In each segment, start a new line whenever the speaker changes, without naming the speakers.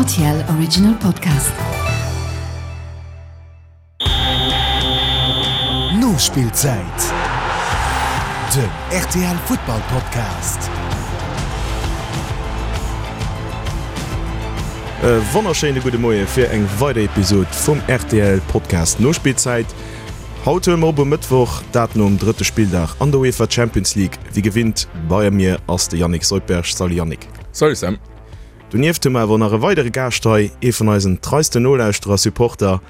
RTL Original Podcast.
Nospillzäit, den rtl Futtball Podcast.
E wonnerschéine gudde Moie fir eng weider Episod vum rtl Podcast Nospillzäit. Haut huele mer op um Mëttwoch, dat nom drëtte Spilldag an der UEFA Champions League. Wéi gewinnt bei mir ass de Yannick Soldberg. Salut Yannick.
Salut Sam.
Donieft hu mer awer nach e weidere Gaascht hei, ee vun eisen treisten Nolauschterer, Supporter,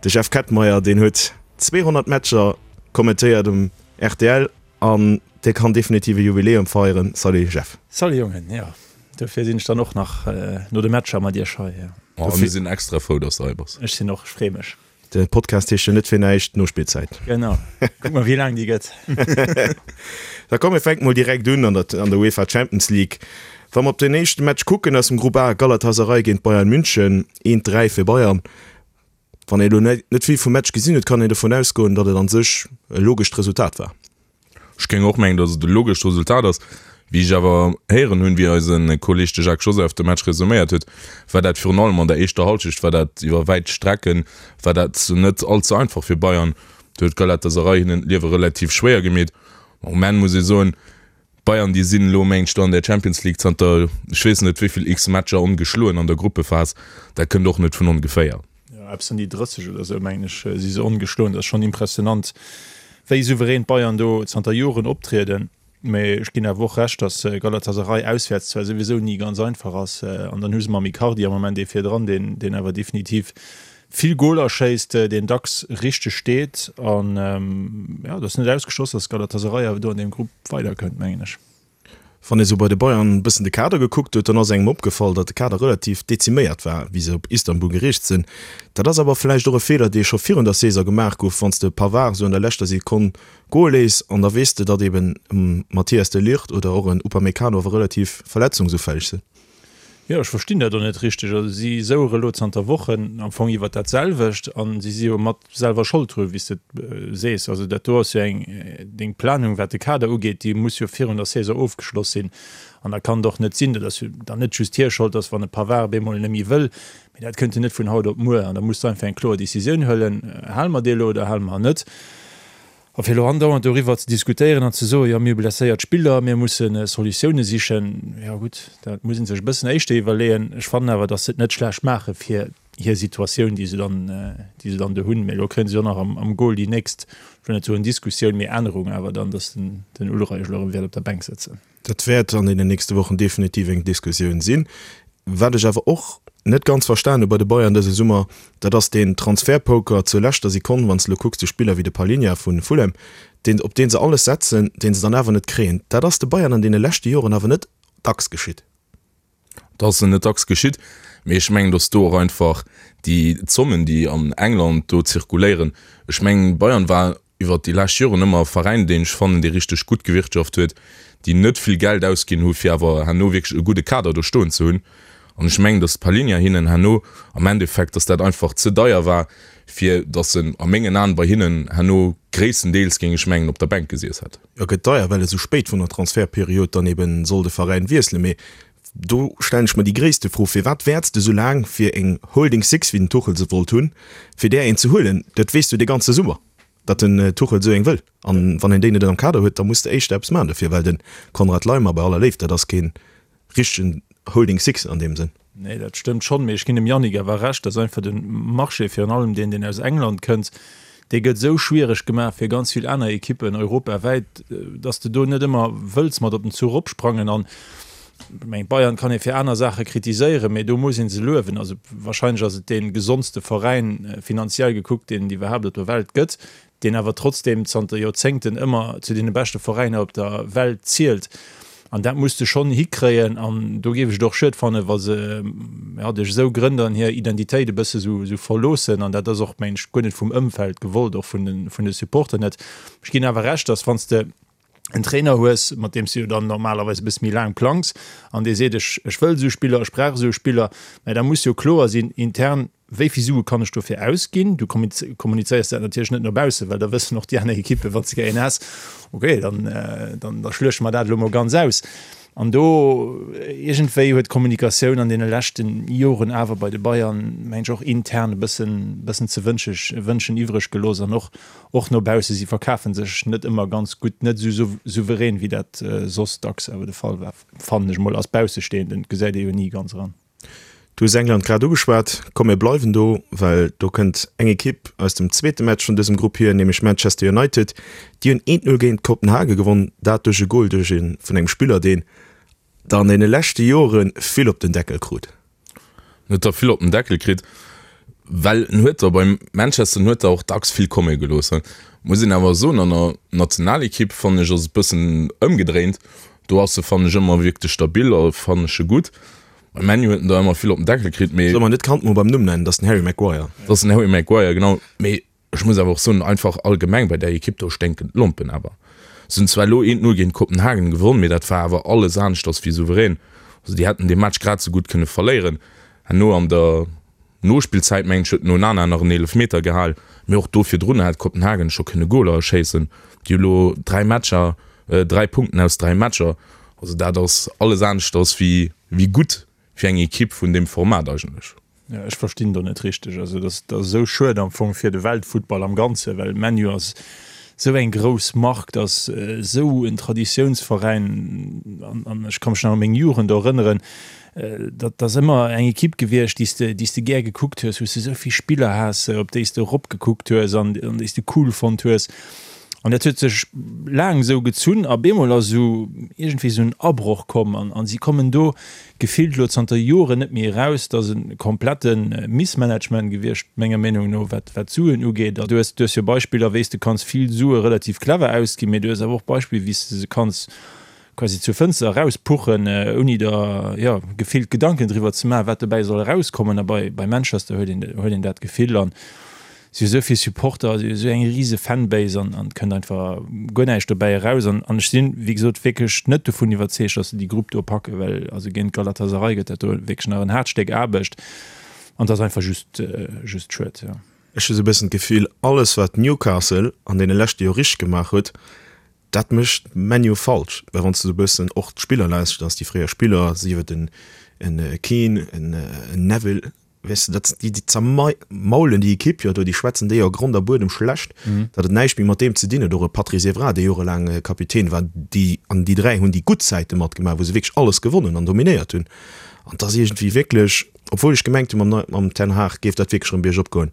de Jeff Kettmeyer. Deen huet 200 Matcher kommentéiert um rtl an dee kann definitiv e Jubiläum feieren. Salut Jeff.
Salut Jongen, jo dofir sinn ech dann och nach no de Matcher mat iech hei.
A mir sinn extra frou, dass de hei bass.
Ech sinn och, ech free mech.
De Podcast heescht jo net fir näischt Nospillzäit.
Genau. Kuck mol wéi laang déi gëtt.
Da komm mir fänke mol direkt un an der an der UEFA Champions League. Wa mer op den éischte Match kucken aus dem Grupp A, Galatasaray géint Bayern München, 1, 3 fir Bayern. Wann ee elo net vill vum Match gesinn huet, kann een dovun ausgoen, datt et an sech e logescht Resultat war.
Ech géing och mengen, datt et e logescht Resultat ass. Wéi ech awer héieren hunn, wéi eise Kolleeg de Jacques Joseph de Match resuméiert huet, war dat virun allem an der éischter Hallschecht war dat iwwer wäit Strecken war dat net all ze einfach fir Bayern. Do huet Galatasaray hinnen d'Liewe relativ schwéier gemeet. Um Enn muss ee soen, d'Bayern déi sinn elo mengt ech do an der Champions League zanter ech weess net wéi vill x Matcher ongeschloen an der Gruppephas. Dat kënnt och net vun ongeféier.
Jo, eppes ëm déi 30 oder esou, mengen ech, si se ongeschloen. Dat ass schonn impressionant, wéi souverän d'Bayern do zanter Joren optrieden. Mee ech ginn awer och Recht, datt Galatasaray auswäerts zwar souwisou ni ganz einfach ass, an dann hu se mam Icardi am Moment ee virdran, deen, deen awer definitiv vill Goler schéisst, deen dacks richteg steet. An jo, et ass net ausgeschloss, datt Galatasaray awer do an deem Grupp weiderkënnt, mengen ech.
Wann ee sou bei de Bayern e bëssen de Kader gekuckt huet, dann ass engem opgefall, datt de Kader relativ deziméiert war, wéi se op Istanbul gereest sinn. Dat ass awer vläicht och e Feeler, dee scho virun der Saison gemaach gouf, wann s de Pavard sou an der leschter Sekonn goe léiss an da weess de, datt eben e Matthijs de Ligt oder och en Upamecano awer relativ verletzungsufälleg sinn.
Jo, ech verstinn dat och net richteg. Also si souere elo zanter Wochen am Fong iwwert dat selwecht a si si jo mat selwer Schold dru wéi s de et sees. Also dat do ass jo eng, deng Planung wat de Kader ugeet, déi muss jo virun der Saison ofgeschloss sinn. An da kann et och net sinn, dat ass jo dann net just hir Schold, datt wann e Pavard op eemol net méi wëll, mee dat kënnt jo net vun haut op muer. An da muss de einfach eng kloer Decisioun huelen, hale mer dee elo oder hale mer en net. A fir elo andauernd doriwwer ze diskutéieren an ze soen, jo mir hu blesséiert Spiller, mir musse Solutioune sichen, jo gutt, dat muss ee sech e bëssen éischter iwwerleeën. Ech fannen awer, datt se et net schlecht maache fir hir Situatioun, déi se dann, déi se dann do hunn. Mee elo kréie se jo nach am Goal déi nächst, ech wëll net soen Diskussioun, mee Ännerung awer dann, datt den Ulreich elo erëm wäert op der Bänk sëtzen.
Dat wäert an deenen nächste Wochen definitiv eng Diskussioun sinn. Wat ech awer och net ganz verstan hu bei de Bayern dëse Summer, dat ass deen Transfertpoker zur leschter Sekonn, wann s de elo kucks, de Spiller wéi de Palhinha vu Fulham, deen, op dee se alles setzen, dee se dann awer net kréien. Dat ass de Bayern an deene leschte Joren awer net dacks geschitt.
Dat ass net dacks geschitt, mee ech mengen, datt do och einfach déi Zommen, déi an England do zirkuléieren, ech mengen, Bayern war iwwert déi lescht Joren ëmmer e Veräin, deen ech fannen, dee richteg gutt gewirtschaft huet, déi net vill Geld ausginn hu fir awer herno wierklech e gudde Kader do stoen ze hunn. An ech mengen, datt d'Palhinha hinnen herno am Endeffekt, datt dat einfach ze deier war, fir datt en a mengen Aen bei hinnen herno gréisstendeels, géing ech mengen, op der Bänk gesiess hätt.
E gëtt deier, well e sou spéit vun der Transfertperiod dann eben soll de Veräin wiesselen. Mee do stellen ech mer déi gréisste Fro, Firwat wäerts de sou laang fir eng Holding Six, wéi den Tuchel se wollt hunn, fir där een ze huelen? Dat weess du de ganze Summer, datt den Tuchel sou eng wëll. An wann een déi net am Kader huet, da muss de éischter eppes maachen dofir, well de Konrad Laimer, bei aller Léift, dat ass keen richtegen Holding Six an deem Sënn.
Nee, dat stëmmt schonn, mee ech ginn dem Yannick awer Recht, dass einfach de Marché, virun allem deen, deen aus England kënnt, dee gëtt esou schwiereg gemaach fir ganz vill aner Ekippen europawäit, dass de do net ëmmer wëlls mat op den Zuch opsprangen. An ech mengen, Bayern kann ee fir aner Saache kritiséieren, mee do muss ee se luewen. Also wahrscheinlech ass et dee gesondste Veräin, finanziell gekuckt, deen et iwwerhaapt op der Welt gëtt. deen awer trotzdeem zanter Joerzéngten ëmmer zu deene beschte Veräiner op der Welt zielt. An dat muss de schonn hikréien. An do géif ech et och schued fannen, wa se, ja, duerch esou Grënn dann hir Identitéit e bësse sou, sou verloossen. An dat ass och, mengen ech, guer net vum Ëmfeld gewollt, och vun de, vun de Supporter net. Ech ginn awer Recht, dass wann s de en Trainer hues, mat deem s du jo dann normalerweis e bësse méi laang plangs, an dee seet, ech, ech wëll esou Spiller, ech brauch esou Spiller, mä da muss jo kloer sinn intern, Wéi vill Sue kann ech dofir ausginn? Du kommunizéiers dat natierlech net no baussen, well da wëssen och déi aner Ekippen, wann s de gär een has, okay, dann, dann da schluechte mer dat elo mol ganz aus. An do iergendwéi huet d'Kommunikatioun an deene leschte Joren awer bei de Bayern, mengen ech, och intern e bëssen, bëssen ze wënsche, wënschen iwwreg gelooss an och, och no bausse. Si verkafe sech net ëmmer ganz gutt, net esou souverän, wéi dat soss dacks awer de Fall war, fannen ech mol als Baussestehenden. Et gesäit ee jo ni ganz eran.
Du hues England grad ugeschwat. Komm mir bleiwen do, well do kënnt eng Ekipp aus dem zweete Match vun dësem Grupp hier, nämlech Manchester United. Déi hunn 1, 0 géint Kopenhage gewonn, dat duerch e Gol duerch e vun engem Spiller, deen der an deene leschte Jore vill op den Deckel krut.
En huet der vill op den Deckel kritt, well en huet der bei Manchester, en huet der och dacks vill komme gelooss. Muss een awer soen, an der Nationalekipp fannen ech ass et bëssen ëmgedréint. Do ass e fannen ech ëmmer wierklech stabil a fannen ech e gutt. Bei ManU huet en der ëmmer vill op den Deckel kritt, mee.
Solle mer net d'Kand mol beim Numm nennen, dat ass den Harry Maguire.
Dat ass den Harry Maguire, genau. Mee ech muss awer och soen, einfach allgemeng bei där Ekipp do sténken d'Lompen awer. Se hunn zwar elo 1, 0 géint Kopenhagen gewonn, mee dat war awer alles aneschters wéi souverän. Also déi hätten dee Match grad esou gutt kënne verléieren. Herno an der Nospillzäit, mengen ech, huet den Onana nach en Eelefmeter gehal, mee och do virdrun hätt Kopenhagen scho kënne Goler schéissen. Déi hu lo 3 Matcher, 3 Punkten aus 3 Matcher. Also dat ass alles aneschters wéi wéi gutt fir eng Ekipp vun deem Format eigentlech.
Jo, ech verstinn do net richteg. Also dat ass esou schued am Fong fir de Weltfuttball am Ganzen, well ManU ass esou eng grouss Mark, dat ass esou en Traditiounsveräin an ech ka mech nach u meng Jugend erënneren, Dat ass ëmmer eng Ekipp gewiescht, déi s de, déi s de gär gekuckt hues, wou s de esou vill Spiller has, op déi s de eropgekuckt hues an déi s de cool fonnt hues. An dat huet sech laang esou gezunn a bemol ass esou iergendwéi esou en Abroch komm an si kommen do gefillt elo zanter Joren net méi eraus. Dat ass e komplette Missmanagement gewiescht, menger Meenung no, wat d'Suen ugeet. Du hues, du hues jo Beispiller, wéi s de kanns vill Sue relativ clever ausginn, mee du hues awer och Beispiller, wéi s de se kanns quasi zur Fënster erauspuchen, ouni der, jo, gefillt Gedanken driwwer ze maachen, wat dobäi soll erauskommen. A bei, bei Manchester huet een, huet een dat Gefill. An si hu sou vill Supporter, si hu sou eng rise Fanbase an, an et kënnt einfach guer näischt dobäi eraus. An, an ech sinn, wéi gesot, wierklech net dovun iwwerzeegt, datt se déi Grupp do packen, well also géint Galatasaray gëtt dat do wierklech nach en haart Stéck Aarbecht. An et ass einfach just, just schued, jo.
Ech hu sou e bëssen d'Gefill, alles wat Newcastle an deene leschte Joer richteg gemaach huet, Dat mécht ManU falsch, well wann s de sou e bëssen och d'Spiller lauschters, déi fréier Spiller, sief et en Keane, en Neville, weess de, dat déi zermaulen déi Ekipp jo do, déi schwätzen déi a Grond a Buedem schlecht, datt et näischt méi mat deem ze dinn huet. Och e Patrice Evra, dee jorelaang Kapitän war, déi an déi 3 hunn déi gutt Zäite matgemaach, wou se wierklech alles gewonnen an dominéiert hunn. An 't ass iergendwéi wierklech, obwuel ech gemengt hunn, mam Ten Hag géif dat wierklech erëm biergop goen,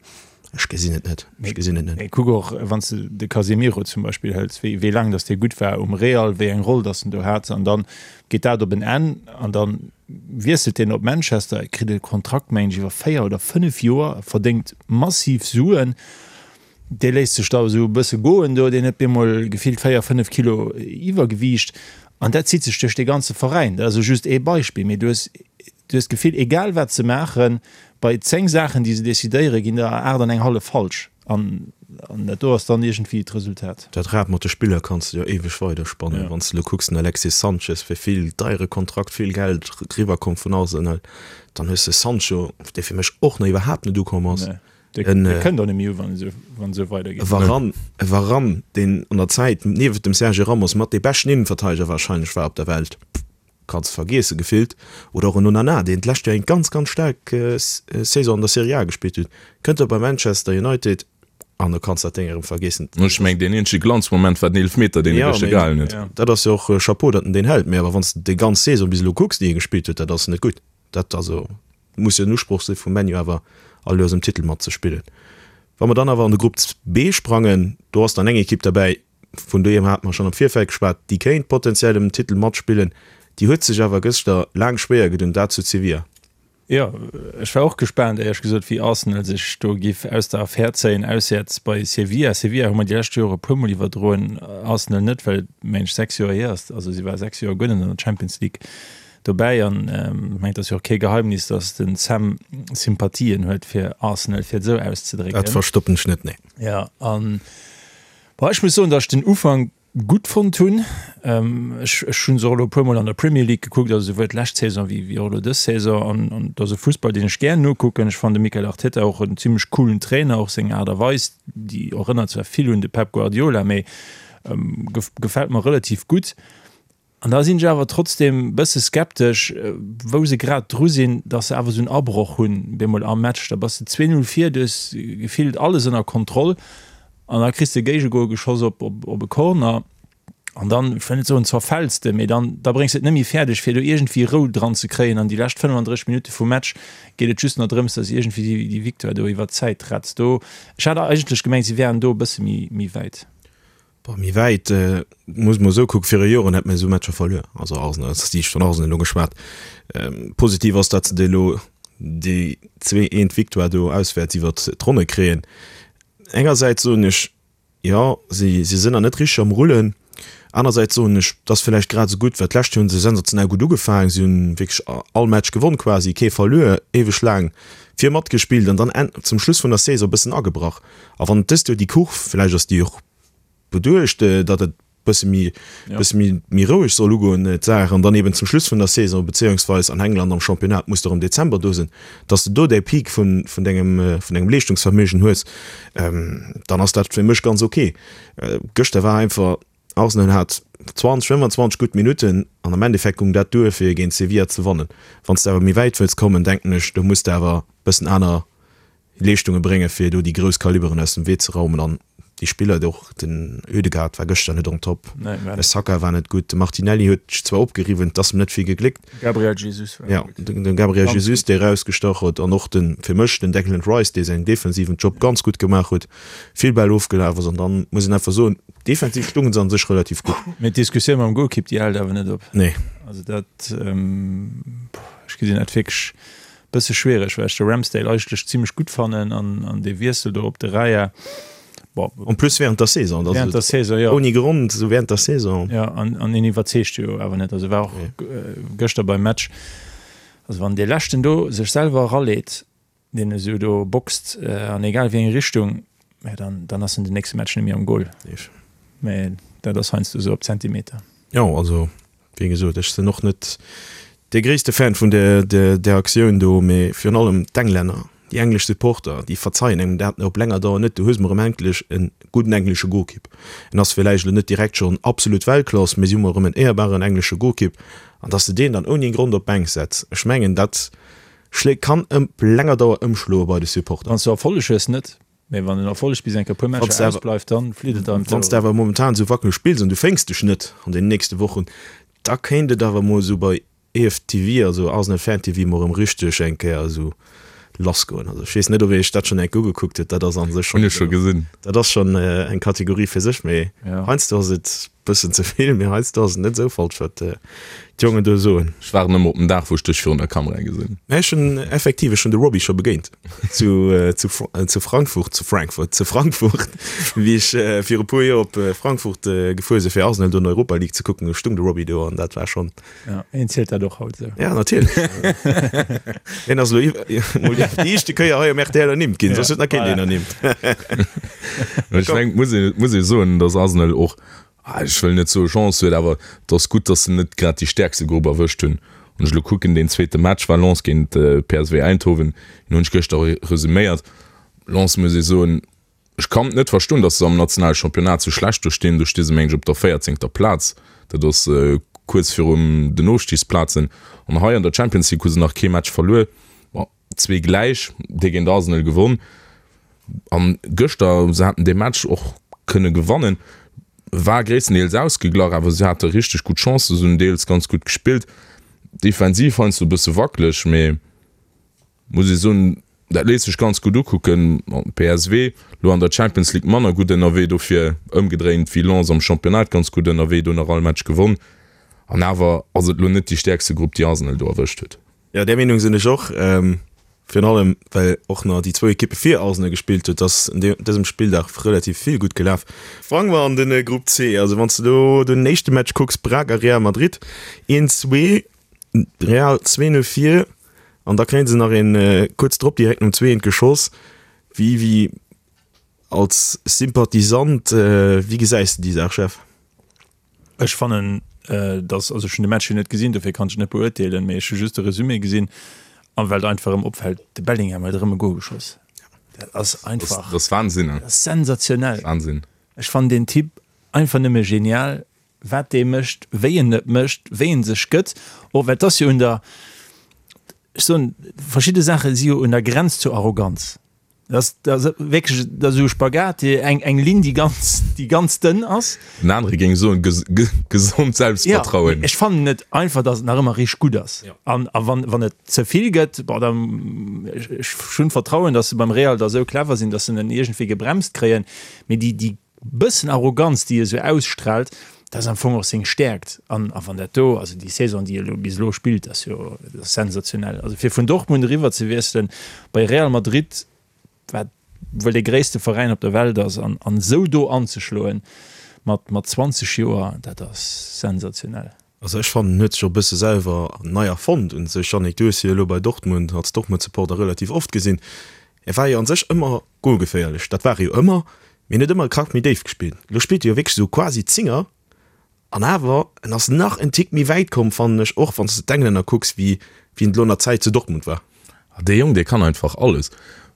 Ech gesinn et net. Ech gesinn et net.
Mee kuck och, wann s de de Casemiro zum Beispill hëls, wéi, wéi laang datt dee gutt war um Real, wéi eng Roll datt en do hat. An dann geet dat op en Enn an da wiesselt deen op Manchester, kritt e Kontrakt, mengen ech, iwwer 4 oder 5 Joer, verdéngt massiv Suen. Dee léisst sech da esou e bësse goen do, deen huet bemol gefillt 4, 5 Kilo Iwwergewiicht. An dat zitt sech duerch dee ganze Veräin. Dat ass elo just ee Beispill, mee du hues Du hues d'Gefill, egal wat se maachen, bei 10 Saachen, déi se decidéieren, ginn der 8 an eng hallef falsch. An dat do ass dann iergendwéi d'Resultat.
Dat Rad mat de Spiller kanns de jo éiweg weiderspannen. Wann s de elo kucks, den Alexis Sanchez, fir vill deiere Kontrakt, vill Geld eriwwerkomm vun Arsenal. Dann hues de Sancho, dee fir mech och nach iwwerhaapt net ukomm ass.
Dee kënnt och net méi u, wann et esou weidergeet.
E Varane, e Varane, deen an der Zäit niewent dem Sergio Ramos mat dee beschten Innenverteideger warscheinlech war op der Welt. Kanns vergiessen gefillt. Oder och en Onana, deen d'lescht Joer eng ganz, ganz staark Saison an der Serie A gespillt huet, kënnt da bei Manchester United an da kanns dat Déng erëm vergiessen.
Ech mengen, deen eenzege Glanzmoment war den Eelefmeter, deen e gëschter gehalen huet.
Dat ass jo och Chapeau, datt en deen hält, mee awer wann s de déi ganz Saison bis elo kucks, déi e gespillt huet, dat ass net gutt. Dat also muss jo den Usproch si vum ManU awer all Joers ëm Titel matzespillen. Wa mer dann awer an de Grupp B sprangen, do ass dann eng Ekipp derbäi, vun deem hate mer schonn am Virfeld geschwat, déi kéint potenziell ëm den Titel matspillen. Déi huet sech awer gëschter laang schwéier gedun, dat zu Sevilla.
Jo, ech war och gespaant, éierlech gesot, wéi Arsenal sech do giff aus der Affär zéien, auswäerts bei Sevilla. Sevilla hu mer déi lescht Jore e puermol iwwerdroen, Arsenal net, well et, mengen ech, 6 Joer hier ass. Also si war 6 Joer guer net an der Champions League dobäi an ech mengen, et ass jo och kee Geheimnis, datt den Sam Sympathien huet fir Arsenal, fir et esou auszedrécken.
Dat verstoppen ech net, nee.
Jo, an Bon, ech muss soen, datt ech den Ufank gutt fonnt hunn. Ech ech hunn se och elo e puermol an der Premier League gekuckt, also souwuel d'lescht Saison wéi wéi och elo dës Saison. An an et ass e Fussball, deen ech gär nokucken. Ech fannen de Mikel Arteta och en zimmlech coolen Trainer, och seng Aart a Weis, déi erënnert zwar vill un de Pep Guardiola, mee gefält mer relativ gutt. An da sinn ech awer trotzdem bësse skeptesch, wou se grad dru sinn, dass se awer esou en Abroch hunn bemol am Match. Da bass de 2, 0 vir, du hues gefillt alles ënner Kontroll an da kriss de e Géigegol geschoss op op e Corner an dann, ech wëll net soen zerfäls de, mee dann da bréngs de et net méi fäerdeg fir do iergendwéi Rou dran ze kréien. An déi lescht 35 Minutte vum Match geet et just nach drëms, dass iergendwéi déi déi Victoire do iwwer d'Zäit retts. Do, ech hat eigentlech gemengt, si wären do e bësse méi méi wäit.
Boah, méi wäit, muss mer esou kucken, viru Joren hätt mir esou Matcher verluer, also Arsenal, ass déi vun Arsenal elo geschwat. Positiv ass, datt se déi elo déi zwee eent Victoire do auswäerts iwwert d'Ronne kréien. Engersäits soen ech, jo, si si sinn nach net richteg am Rullen. Anersäits soen ech, et ass villäicht grad esou gutt, well d'lescht Joer hu se sensationell gutt ugefaangen, si hunn wierklech all Match gewonn quasi, kee verluer, éiweg laang vir matgespillt an dann zum Schluss vun der Saison e bëssen agebrach. A wann dëst Joer déi Kurv, villäicht ass déi och beduecht, datt et bësse méi, bësse méi, méi roueg soll ugoen, d'Saach, an dann eben zum Schluss vun der Saison, bezéiungsweis an England am Championnat muss de erëm Dezember do sinn, datt s de do däi Peak vun, vun dengem, vun dengem Leeschtungsverméigen hues, dann ass dat fir mech ganz ok. Gëschter war einfach, Arsenal hat 20, 25 gutt Minutten an am Endeffekt goung dat duer fir géint Sevilla ze wannen. Wann s de awer méi wäit wëlls kommen, denken ech, do muss de awer bëssen aner Leeschtunge bréngen, fir do déi grouss Kaliberen aus dem Wee ze raumen. An déi Spiller, och den Ødegaard war gëschter net on top, de Saka war net gutt, de Martinelli huet sech zwar opgeriwwen, et ass em net vill gegléckt.
Gabriel Jesus
war gutt. Jo, de Gabriel Jesus, dee erausgestach huet an och de, fir mech, den Declan Rice, dee säin defensiven Job ganz gutt gemaach huet, vill Bäll ofgelaf ass. An dann muss een einfach soen, defensiv stounge se an sech relativ gutt.
Mee d'Diskussioun mam Golkipp, déi hält awer net op.
Nee.
Also dat, ech gesinn dat wierklech Bësse schwiereg, well ech de Ramsdale eigentlech zimlech gutt fannen an an dee Wiessel do op de Raya,
bon. En plus während der Saison, dat
Während der Saison, jo.
Ouni Grond, esou während der Saison.
Jo, an an en iwwerzeegt jo awer net. Also war och gëschter beim Match, also wann dee leschten do sech selwer eraleet, deen esou do boxt an egal wéi eng Richtung, mä dann dann ass en den nächste Match net méi am Goal. Mä dat ass heiansdo esou op Zentimeter.
Jo, also Wéi gesot, ech sinn och net dee gréisste Fan vun där Aktioun do, mee virun allem d'Englänner, déi englesch Supporter, déi verzeien engem dat op länger Dauer net. Du hues mol erëm endlech e gudden englesche Golkipp. En ass villäicht elo net direkt schonn absolut Weltklass, mee si hu mol erëm en éierbaren englesche Golkipp. An datt s de deen dann ouni Grond op d'Bänk setz, ech mengen, dat schléit, kann op länger Dauer ëmschloe bei de Supporter.
Wann s du Erfolleg hues, net. Mee wann den Erfolleg bis eng Kéier e puer Matcher ausbleift, dann flitt et
einem Wann s de awer momentan esou wackeleg spills an du féngs dech net an den nächste Wochen, da kéint et awer mol esou bei EFTV, also Arsenal Fan TV, mol erëm richteg eng Kéier esou lass goen. Also ech weess net, ob ee sech dat schonn eng Kéier ugekuckt huet, dat ass a sech
schonn, Hunn ech scho gesinn.
Dat ass schonn eng Kategorie fir sech, mee heiansdo ass et Bëssen ze vill, mee heiansdo ass et net esou falsch, wat d'Jongen do soen.
Ech waarden ëmmer op den Dag, wou ech dech virun der Kamera gesinn.
Mä ech hunn effektiv, ech hunn de Robbie scho begéint zu, zu, zu Frankfurt, zu Frankfurt, zu Frankfurt, wéi ech viru puer Joer op Frankfurt gefuer sinn, fir Arsenal do an der Europa League ze kucken. Do stung de Robbie do an dat war schonn.
Ja, een zielt dat och haut esou.
Ja, natierlech. Hien ass elo mol déi éischte Kéier hei um rtl ernimmt ginn, soss huet nach keen deen ernimmt.
Ech mengen, et muss een, et muss ee soen, datt Arsenal och, ech wëll net soe Chance huet, awer et ass gutt, datt se net grad déi stäerkste Grupp erwëscht hunn. Wann ech elo kucken, deen zweete Match war Lens géint PSV Eindhoven, deen hunn ech gëschter resuméiert. Lens, muss ee soen, Ech kann et net verstoen, dass se am nationale Championnat sou schlecht do stinn. Do sti se meng ech op der véierzéngter Plaz, dat ass kuerz virum den Ofstigsplazen. An hei an der Champions League hu se nach kee Match verluer, bon zwee gläich, dee géint Arsenal gewonn an gëschter, se haten dee Match och kënne gewannen, war gréisstendeels ausgeglach, awer se hate richteg gutt Chancen, se hunn deels ganz gutt gespillt, defensiv heiansdo e bësse wackeleg, mee muss ee soen, dat léisst sech ganz gutt ukucken. PSV lo an der Champions League manner gutt ënnerwee, dofir ëmgedréint wéi Lens am Championnat ganz gutt ënnerwee, do nach all Match gewonn. An awer ass et lo net déi stäerkste Grupp, déi Arsenal do erwëscht huet.
Jo, där Meenung sinn ech och. Virun allem, well och nach déi zwou Ekippe vir Arsenal gespillt huet, ass un dësem Spilldag relativ vill gutt gelaf. Sprange mer an de Grupp C. Also wann s de do den éischte Match kucks, Braga Real Madrid, 1, 2, Real 2, 0 vir. An da kréien se nach een kuerz drop direkt nom zweent geschoss. Wéi, wéi als Sympathisant, wéi gesäis de déi Saach, Jeff?
Ech fannen, dass, also ech hunn de Match jo net gesinn, dofir kann ech et net beurteelen, mee ech hu just de Resumé gesinn an well et einfach erëm opfält, de Bellingham huet erëm e Gol geschoss. Dat ass einfach,
Dat ass Wahnsinn,
dat ass sensationell.
Wahnsinn.
Ech fannen deen Typ einfach nëmme genial. wat dee mécht, wéi en et mécht, wéi en sech gëtt, och well et ass jo un der, ech soen, verschidde Saache si jo un der Grenz zur Arroganz. Dat ass, dat ass wierklech, dat ass esou e Spagat, déi eng, eng Linn, déi ganz, déi ganz dënn ass.
En anere géing soen, gesond Selbstvertrauen.
Jo, ech fannen et einfach, datt et nach ëmmer richteg gutt ass. An, a wann, wann et ze vill gëtt, bon, da, ech, ech hunn Vertrauen, datt se beim Real da esou clever sinn, datt se en iergendwéi gebremst kréien. Mee déi, déi bëssen Arroganz, déi e sou ausstrahlt, dat ass am Fong och seng Stäerkt. An a wann dat do, also déi Saison, déi e lo bis elo spillt, ass jo dat ass sensationell. Also fir vun Dortmund eriwwer ze wiesselen bei Real Madrid, wat wuel dee gréisste Veräin op der Welt ass, an an esou do anzeschloen mat mat 20 Joer, dat ass sensationell.
Also ech fannen en huet sech och e bësse selwer nei erfonnt un sech. Yannick, du hues hie jo elo bei Dortmund als Dortmund-Supporter relativ oft gesinn. E war jo an sech ëmmer golgeféierlech, dat war e jo ëmmer, mee en huet ëmmer e Krack méi déif gespillt. Elo spillt e jo wierklech esou quasi Zinger an awer en ass nach en Tick méi wäit komm, fannen ech, och wann s de d'Englänner kucks, wéi wéi en elo an der Zäit zu Dortmund war.
Dee Jong, dee kann einfach alles.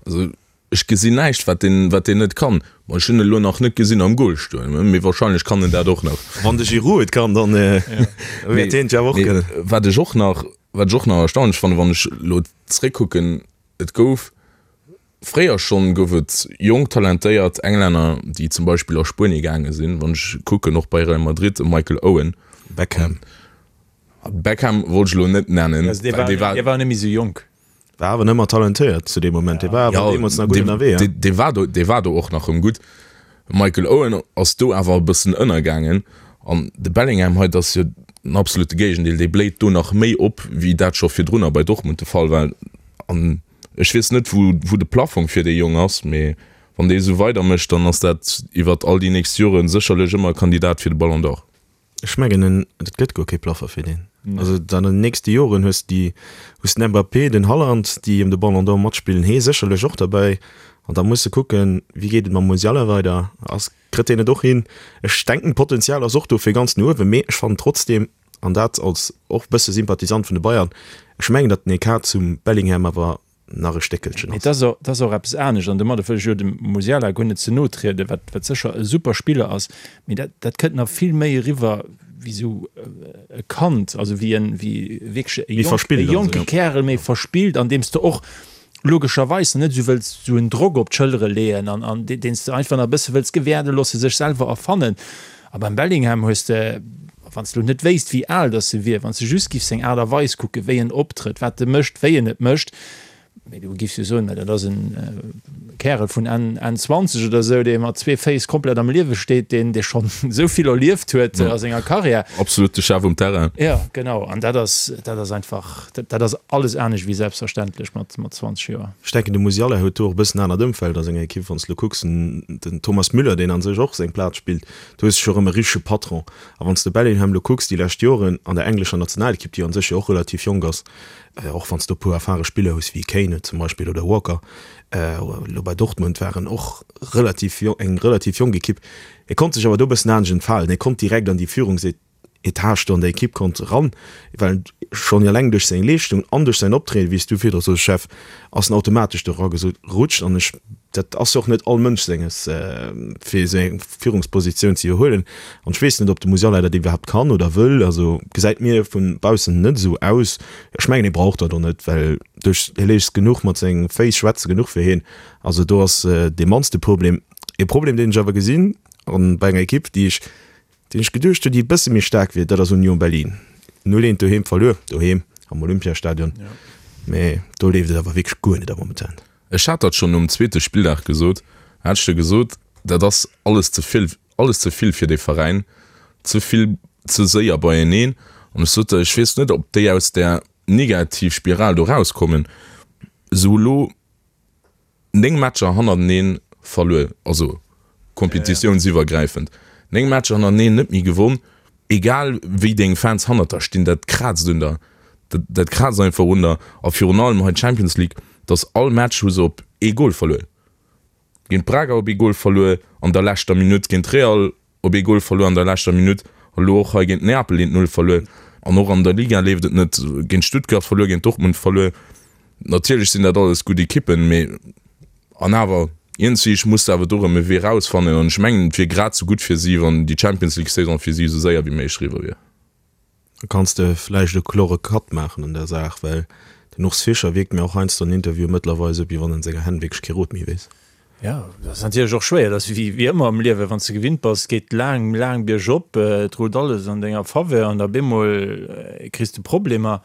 Also Ech gesinn näischt, wat deen, wat deen net kann. Bon, ech hunn en elo nach net gesinn am Goal stoen, mee wahrscheinlech kann en dat och nach.
Wann de Giroud et kann, dann wäert hien et jo awer och kënnen.
Wat ech och nach, wat ech och nach erstaunlech fannen, wann ech elo zréckkucken, et gouf fréier schonn, gouf et jonk talentéiert Englänner, déi zum Beispill a Spuenie gaange sinn. Wann ech kucken, och bei Real Madrid, e Michael Owen.
Beckham.
Beckham wollt ech elo net nennen,
well dee war. Dee war net méi esou jonk.
War awer nëmmer talentéiert zu deem Moment. Dee war awer deemools nach gutt ënnerwee.
Ja. Dee war do, dee war do och nach rëm gutt. Michael Owen ass do awer e bëssen ënnergaangen. An de Bellingham hei, dat ass jo den absolute Géigendeel. Dee bléit do nach méi op, wéi dat scho virdrunner bei Dortmund de Fall war. An ech weess net, wou, wou de Plafong fir dee Jong ass, mee wann dee esou weidermécht, dann ass dat iwwert all déi nächst Jore sécherlech ëmmer e Kandidat fir de Ballon d'Or.
Ech mengen en, et gëtt guer kee Plaffer fir deen. Also an den nächste Joren hues de déi, hues den Mbappé, den Haaland, déi ëm de Ballon d'Or matspillen, hee sécherlech och derbäi. An da muss de kucken, wéi geet et mam Musiala weider, ass, kritt deen et och hin? Ech denken d'Potenzial ass och do fir ganz no uewen, mee ech fannen trotzdem, an dat als och bësse Sympathisant vun de Bayern, ech mengen datt den Ecart zum Bellingham awer nach e Stéckelchen
ass. Et ass och eppes anescht, an domadder wëll ech jo dem Musiala guer net ze no trieden, wat wat sécher e super Spiller ass, mee dat dat kënnt nach vill méi eriwwer wéi esou e Kand, also wéi en wéi wierklech e jonk e jonke Kärel, méi verspillt, an deem s de och logescherweis net esou wëlls esou en Drock op d'Schëllere leeën an an deen s de einfach nach e bësse wëlls gewäerde loosse sech selwer erfannen. A beim Bellingham hues de, wann s de elo net wéisst, wéi al datt e wier, wann s de just giffs seng Aart a Weis kucken, wéi en optrëtt, wat e mécht, wéi en et mécht, mee du giffs jo soen, mä dat ass en Kärel vun Enn, Enn 20 oder esou, dee mat zwee Féiss komplett am Liewe steet, deen, dee schonn esou vill erlieft huet a senger Karriär.
Absolut de Chef um Terrain.
Jo, genau. An dat ass, dat ass einfach, dat, dat ass alles anescht wéi selbstverständlech mat, mat 20 Joer.
Ech denken, de Musiala huet do och e bëssen anert Ëmfeld a senger Ekipp. Wann s de elo kucks, den Thomas Müller, deen a sech och seng Plaz spillt, Do hues de scho rëm e richtege Patron. A wann s de Bellingham elo kucks, déi lescht Joren an der englescher Nationalekipp, déi an sech jo och relativ jonk ass, och wann s de e puer erfare Spiller hues wéi Kane zum Beispill oder Walker, elo bei Dortmund war en och relativ eng relativ jonk Ekipp, e konnt sech awer do e bëssen anescht entfalen, e konnt direkt an déi Führungsetage do an der Ekipp konnt eran, well schonn eleng duerch seng Leeschtung an duerch säin Optrieden, wéi s du virdru soos, Jeff, ass en automatesch do eragerutscht an ech, dat ass jo och net all Mënsch senges, fir esou eng Führungspositioun ze iwwerhuelen an ech weess net, ob de Musiala dat iwwerhaapt kann oder wëll, also gesäit mir vu baussen net esou aus. Ech mengen, hie brauch dat och net, well duerch, hie léisst genuch mat senge Féiss schwätze genuch fir hien, also do ass dee mannste Problem. E Problem, deen ech awer gesinn an bei enger Ekipp, déi ech Deen ech geduecht hunn, déi e bësse méi staark wier, dat ass Union Berlin. 0, 1 doheem verluer, doheem am Olympiastadion, mee do leeft et awer wierklech guer net am Momentan.
Ech hat dat schonn nom zweete Spilldag gesot, hat ech jo gesot, dat ass alles ze vill, alles ze vill fir dee Veräin, ze vill, ze séier beieneen. An ech sot der, ech weess net, ob déi aus där Negativspiral do rauskommen. Esou elo 9 Matcher hannerteneen verluer, also kompetitiounsiwwergräifend, 9 Matcher hannerteneen net méi gewonn, egal wéi deng Fans hannert der stinn, dat kraazt un der, dat kraazt einfach un der. A virun allem hei d'Champions League, dass all Match hu se op ee Gol verluer, géint Braga op ee Gol verluer an der leschter Minutt, géint Real Op ee Gol verluer an der leschter Minutt, elo och hei géint Neapel eent Null verluer. An och an der Liga leeft et net, géint Stuttgart verluer, géint Dortmund verluer. Natierlech sinn dat alles gutt Ekippen, mee an awer. Iergendwéi muss de awer do erëm e Wee rausfannen an ech mengen, et wier grad esou gutt fir si, wann déi Champions League Saison fir si esou séier wéi méiglech eriwwer wier.
Da kanns de vläicht e klore Cut maachen an der Saach, well den Urs Fischer wierkt mir och heiansdo an Interviewen mëttlerweil esou, wéi wann en senger Hänn wierklech kee Rot méi weess.
Jo, dat ass natierlech och schwéier. Dat ass wéi wéi ëmmer am Liewen, wann s de gewinnt bass, geet laang, laang biergop, et rullt alles an denger Faveur an da bemol kriss de Problemer.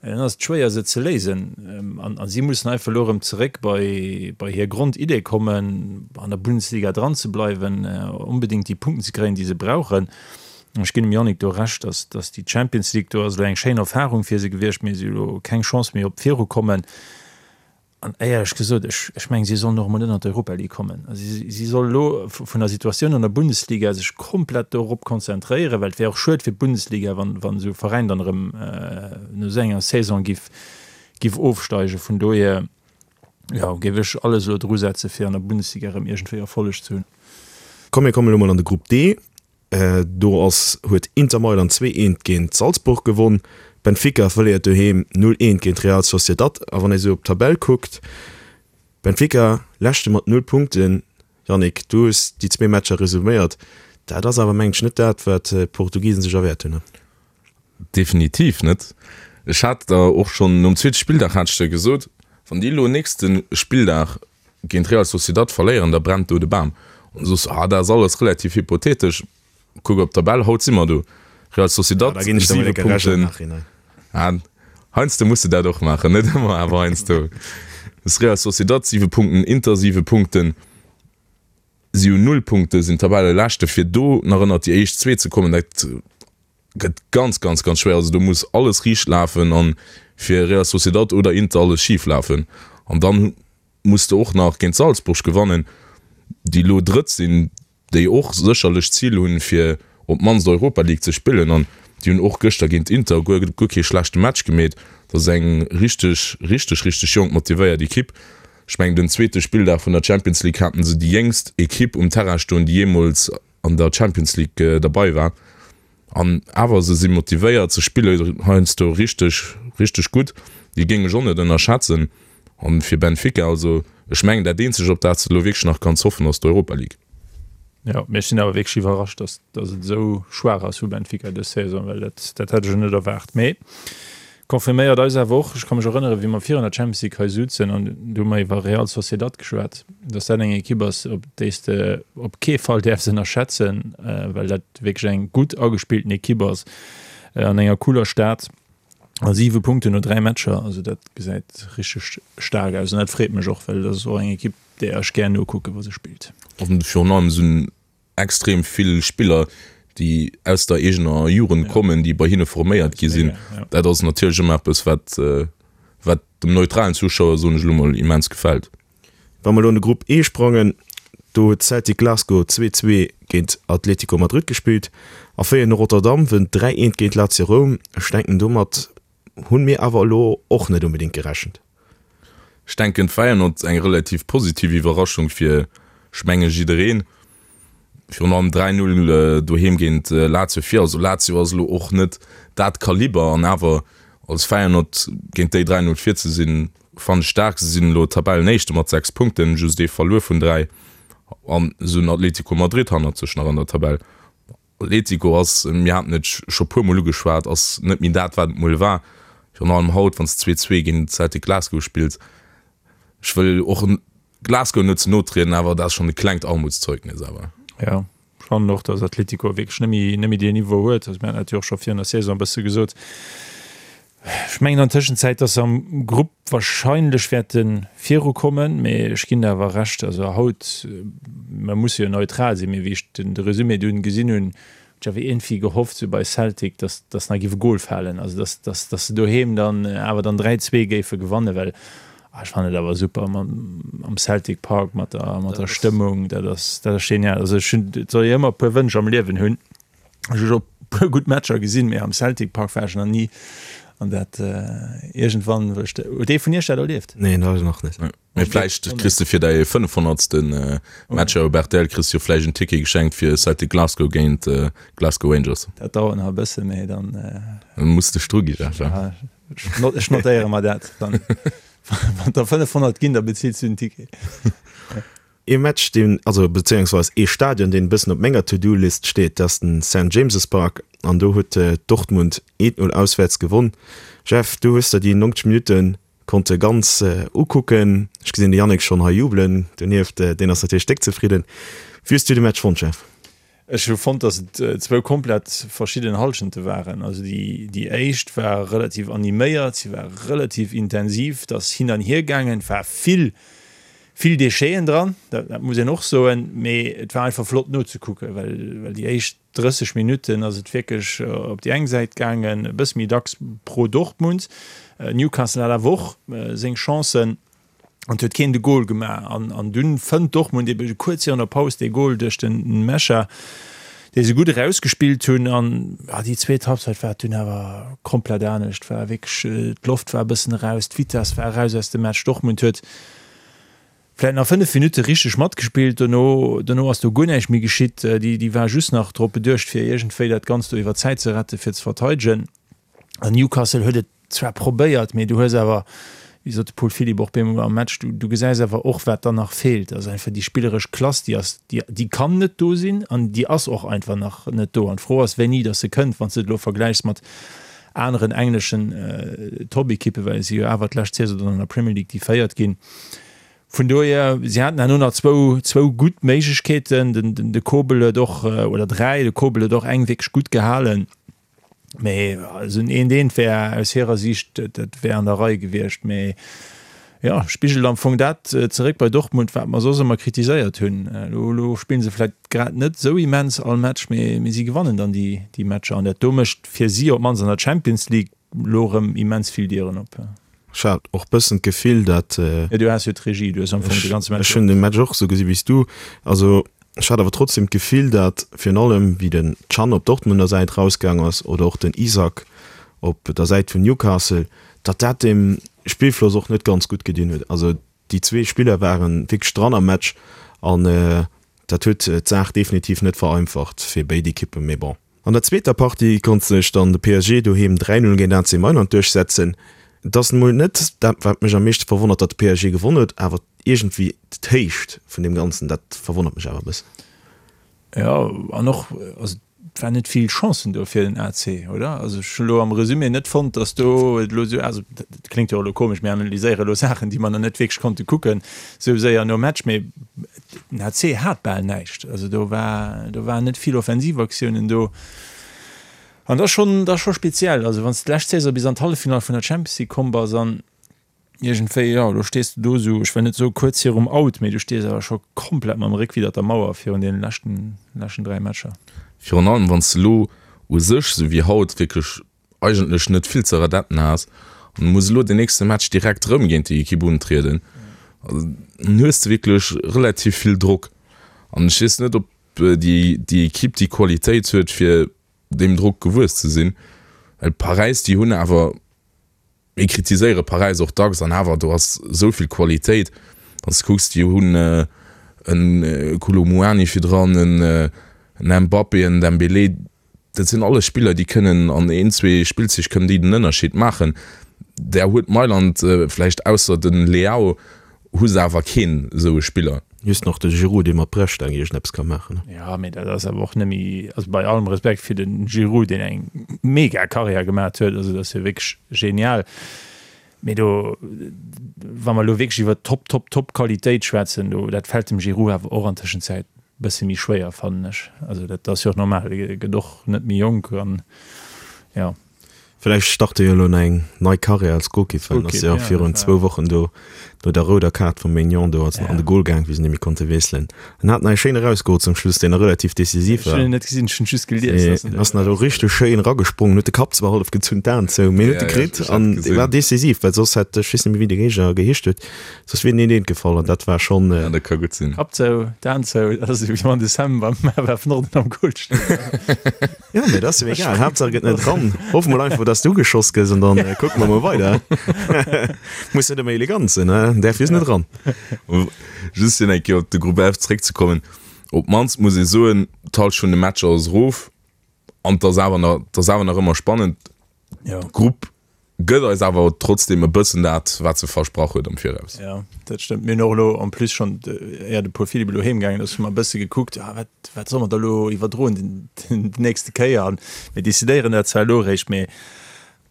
Dann ass et schwéier se ze léisen. An si mussen einfach elo erëm zeréck bei bei hir Grondidee kommen, an der Bundesliga dran ze bleiwen, onbedéngt déi Punkten ze kréien, déi se brauchen. Ech ginn dem Yannick do Recht, dass dass déi Champions League do ass elo eng schéin Erfarung fir se gewiescht, mee si hu elo keng Chance méi op d'Virukommen. An éierlech gesot, ech ech mengen, si sollen och emol net an d'Europa League kommen. Also si si solle elo vun der Situatioun an der Bundesliga sech komplett dorop konzentréieren, well et wär och schued fir d'Bundesliga, wann wann esou e Veräin dann erëm no esou enger Saison giff giff ofsteigen. Vun dohier, jo, géif ech alles elo drusetze fir an der Bundesliga erëm iergendwéi Erfolleg ze hunn.
Komm mir kommen elo mol an de Grupp D. Do ass huet Inter Mailand 2, 1 géint Salzburg gewonn. Benfica verléiert doheem 0, 1 géint Real Sociedad. A wann ee sou op d'Tabell kuckt, Benfica leschte mat 0 Punkten. Yannick, du hues déi zwee Matcher resuméiert. Dat ass awer mengen ech net dat, wat d'Portugisen sech erwäert hunn.
Definitiv net. Ech hat der och schonn nom zweete Spilldag hat ech der gesot, wann déi elo nächste Spilldag géint Real Sociedad verléieren, da brennt do de Bam. An du soos, ah, dat ass alles relativ hypothetesch. Kuck op d'Tabell, haut si mer do. Real Sociedad, 7 Punkten. Ah, heiansdo muss de dat och maachen, net ëmmer, awer heiansdo. Real Sociedad 7 Punkten, Inter 7 Punkten. Si hunn 0 Punkte, sinn Tabelleleschte. Fir do nach ënnert déi éischt zwee ze kommen, dat gëtt ganz, ganz, ganz schwéier. Also do muss alles riicht lafen an fir Real Sociedad oder Inter alles schif lafen. An dann muss de och nach géint Salzburg gewannen, déi elo Drëtt sinn, déi och sécherlech d'Zil hunn, fir op d'mannst Europa League ze spillen. An déi hunn och gëschter géint Inter guer, guer kee schlechte Match gemeet. Dat ass eng richteg, richteg, richteg jonk, motivéiert Ekipp. Ech mengen den zweete Spilldag vun der Champions League haten se déi jéngst Ekipp um Terrain stoen, déi jeemools an der Champions League derbei war. An awer, se si motivéiert, se spille heiansdo richteg, richteg gutt. Déi géing ech och net ënnerschätzen. An fir Benfica, also ech mengen dat eenzegt op dat s de elo wierklech nach kanns hoffen, ass d'Europa League.
Jo, mee ech sinn awer wierklech iwwerrascht, dass dass et esou schwaach ass vu Benfica dës Saison, well dat dat hätt ech elo net erwaart. Mee confirméiert eis awer och, ech ka mech erënneren, wéi mer virun der Champions League hei souzen an do hu mer iwwer Real Sociedad geschwat, dass dat eng Ekipp ass, op déi s de op kee Fall däerfs ënnerschätzen, well dat wierklech eng gutt agespillten Ekipp ass an enger cooler Stad. A 7 Punkten no 3 Matcher, also dat gesäit richteg staark aus an dat freet mech och, well dat ass och eng Ekipp, där ech gär nokucken, wa se spillt.
An virun allem sinn extrem vill Spiller, déi aus der eegener Jugend kommen, déi bei hinne forméiert gi sinn. Dat ass natierlech ëmmer eppes, wat, wat dem neutralen Zuschauer, soen ech elo mol, immens gefält.
Wa mer elo an de Grupp E sprangen, do huet Celtic Glasgow 2, 2 géint Atlético Madrid gespillt a Feyenoord Rotterdam wënnt 3, 1 géint Lazio Roum. Ech denken domat hunn mir awer elo och net onbedéngt gerechent.
Ech denken Feyenoord eng relativ positiv Iwwerraschung fir, ech menge jiddereen. Virun allem 3, 0 doheem géint Lazio vir. Also Lazio ass elo och net dat Kaliber an awer als Feyenoord géint déi 3, 0 vir ze sinn, fannen ech staark. Se sinn elo Tabellenéischte mat 6 Punkten, just ee verluer vun 3 an se hunn Atletico Madrid hannert sech nach an der Tabell. Atletico ass, mir haten et scho puer mol ugeschwat, ass net méi dat wat et mol war. Virun allem haut wann s de 2, 2 géint Celtic Glasgow spills. Ech wëll och Glasgow net ze no trieden, awer dat ass schonn e klengt Armutszeugnis awer.
Jo, ech fannen och, datt Atletico wierklech net méi, net méi deen Niveau huet. Also mir haten dat jo och scho virun der Saison e bësse gesot. Ech mengen an Tëschenzäit, datt se am Grupp wahrscheinlech wäerte virukommen, mee ech ginn der awer Recht, also haut, mer musse jo neutral sinn, mee wéi ech den de Resumé dunn gesinn hunn, Ech awer iergendwéi gehofft sou bei Celtic, dass dass nach géif e Gol falen, also dass dass dass se doheem dann awer dann 3, 2 géife gewannen, well ah ech fannen et awer super mam am Celtic Park mat der mat der Stëmmung, dat ass dat ass genial. Also ech hunn, et soll ee ëmmer e puer Wënsch am Liewen hunn, ech hu scho puer gutt Matcher gesinn, mee am Celtic Park war ech nach ni an dat iergendwann wëll ech, huet ee vun iech dat erlieft?
Nee, dat nach net.
Mee vläicht kriss de fir däi 500. Match op rtl kriss jo vläicht en Ticket geschenkt fir Celtic Glasgow géint Glasgow Rangers.
Dat dauert nach e bësse, mee dann.
Dann muss de dru gi, Jeff.
Ech notéiere mer dat dann. Wann der 500 ginn, da bezills du den Ticket.
Ee Match, deen, also bezéiungsweis ee Stadion, deen e bëssen op menger To-Do-List steet, dat ass den Saint James's Park an do huet Dortmund 1-0 auswäerts gewonn. Jeff, du hues der déi 90 Minutte konnte ganz ukucken. Ech gesinn de Yannick schonn hei jubelen donieft, deen ass natierlech déck zefridden. Wéi hues du de Match fonnt, Jeff?
Ech hu fonnt, datt et zwou komplett verschidden Hallschente waren. Also déi déi éischt war relativ animéiert, si war relativ intensiv, et ass hin an hier gaangen, et war vill vill Décheten dran, dat dat muss een och soen, mee et war einfach flott nozekucken, well well déi éischt 30 Minutten ass et wierklech op déi eng Säit gaangen, e bësse méi dacks pro Dortmund. Newcastle hat awer och seng Chancen. An huet keen de Goal gemaach. An, an dunn fënnt Dortmund ebe kuerz virun der Paus dee Goal duerch den Nmecha, dee se gutt erausgespillt hunn. An ja, déi zweet Halbzeit war et dunn awer komplett anescht. War wierklech, d'Loft war e bëssen eraus, d'Vitess war eraus aus dem Match. Dortmund huet vläit nach 5 Minutte richteg matgespillt, dono, dono ass do guer näischt méi geschitt. Déi, déi war just nach drop beduecht, fir iergendwéi dat Ganzt do iwwer d'Zäit ze retten, fir ze verteidegen. An Newcastle huet et zwar probéiert, mee du hues awer, wéi sot de Paul Philipp och bemol am Match, du, du gesäis awer och, wat dann nach feelt. Also einfach déi spilleresch Klass, déi ass, déi, déi kann net do sinn an déi ass och einfach nach net do. An d'Fro ass, wéini datt se kënnt, wann s de et elo vergläichs mat aneren engleschen Top-Ekippen, well si jo awer d'lescht Saison dann an der Premier League déi Véiert ginn. Vun dohier, si haten herno nach zwou, zwou gutt Méiglechkeeten. Den, den, de Kobel huet och, oder dräi, de Kobel huet och eng wierklech gutt gehalen. Mee esou en eent eent wär aus hirer Siicht, dat wär an der Rei gewiescht. Mee jo, spigelt am Fong dat zeréck bei Dortmund, wat mer soss ëmmer kritiséiert hunn. Elo, elo spille se vläicht grad net esou immens all Match, mee, mee si gewannen dann déi, déi Matcher. An dat do mécht fir si op d'mannst an der Champions League elo erëm immens vill Dieren op.
Ech hat och bëssen d'Gefill, dat.
Jo, du has jo d'Regie, du hues am Fong de ganze
Match. Ech hunn de Match och esou gesi wéi s du. Also Ech hat awer trotzdem d'Gefill, dat virun allem wéi den Can op Dortmunder Säit rausgaang ass oder och den Isak op der Säit vun Newcastle, datt dat dem Spillfloss och net ganz gutt gedinn huet. Also déi zwee Spiller waren wierklech dran am Match an dat huet d'Saach definitiv net vereinfacht fir béid Ekippen. Mee bon. An der zweeter Partie konnt sech dann de PSG doheem 3, 0 géint AC Mailand duerchsetzen. Et ass emol net dat wat mech am meeschte verwonnert, datt de PSG gewonn huet, awer iergendwéi d'Héicht vun deem Ganzen, dat verwonnert mech awer e bëssen.
Jo, an och, also et waren net vill Chancen do fir den AC, oder? Also ech hunn elo am Resumé net fonnt, datt do et elo esou, also dat kléngt jo och elo komesch, mir analyséiere elo Saachen, déi mer nach net wierklech konnte kucken, esou séier nom Match, mee Den AC hat bal näischt, also do war, do waren net vill Offensivaktiounen do. An dat ass schonn, dat ass scho speziell. Also wann s de d'lescht Saison bis an d'Halleffinall vun der Champions League komm bass an iergendwéi, jo, elo stees de do esou, ech wëll net soe kuerz virum Out, mee du stees awer scho komplett mam Réck widder der Mauer virun deene leschten, leschten 3 Matcher.
Virun allem wann s de elo u sech, esou wéi haut, wierklech eigentlech net vill ze redetten has an du muss elo den nächste Match direkt rëm géint déi Ekipp untrieden, dann hues de wierklech relativ vill Drock an ech weess net, ob déi déi Ekipp déi Qualitéit huet, fir deem Drock gewuess ze sinn, well Paräis, déi hunn awer, mir kritiséiere Paräis och dacks an awer do ass esou vill Qualitéit, wann s de kucks, déi hunn e Kolo Muani virdran, en Mbappé, en Dembélé, Dat sinn alles Spiller, déi kënnen an een, zwee Spillzich kënnen déi den Ënnerscheed maachen. Där huet Mailand vläicht, ausser de Leao, hu se awer keen esou e Spiller.
Just nach de Giroud, dee mat Brechstaang iergendeppes ka maachen.
Jo, mee dat ass awer och net méi, also bei allem Respekt fir de Giroud, deen eng mega Karriär gemaat huet, also dat ass jo wierklech genial, mee do, wa mer elo wierklech iwwer Top, Top, Top Qualitéit schwätzen, do, dat fält dem Giroud awer och an Tëschenzäit Bësse méi schwéier fannen ech. Also dat ass jo och normal, e gëtt och net méi jonk an jo.
Villäicht start e jo elo eng nei Karriär als Golkipp, well en ass jo virun zwou Wochen do no der rouder Kaart vum Maignan do als an de Gol gaang, wéi se net méi konnte wiesselen. En hat nach ee schéine erausgeholl zum Schluss, deen nach relativ decisiv
war. Ech hunn en net gesinn, ech hunn just gelies, dass
en ass nach do richteg schéin eragesprongen, huet de Kapp zwar hallef gezunn, d'Aen zou, mee huet e kritt an dee war decisiv, well soss hätt, ech weess net méi wéi de Géigner geheescht huet, Soss wier en een eent gefall an dat war schonn.
Ja, dat ka gutt sinn.
Kapp zou, d'Aen zou, dat ass ewéi wann de Sam beim FF Norden am Goal steet.
Jo, mee dat ass jo egal, Haaptsaach et gëtt net dran. Hoffe mol einfach, dass de ugeschoss gëss an dann kucke mer mol weider. Muss net ëmmer elegant sinn, ne? Däerf just net ran.
Just fir nach eng Kéier op de Grupp F zeréckzekommen, Op d'mannst muss ee soen, d'Halschent vun de Matcher ass erof an et ass awer nach, et ass awer nach ëmmer spannend.
Jo.
Grupp. Gëtt eis awer trotzdem e bëssen dat, wat se versprach huet am Viraus.
Jo, dat stëmmt. Mir hunn och elo en plus schonn, éier de Paul Philipp elo heem gaangen ass, hu mer e bësse gekuckt, ah, wat, wat solle mer da elo iwwerdroen den, den nächste Kéier. An mir decidéieren dat zwar elo eréischt, mee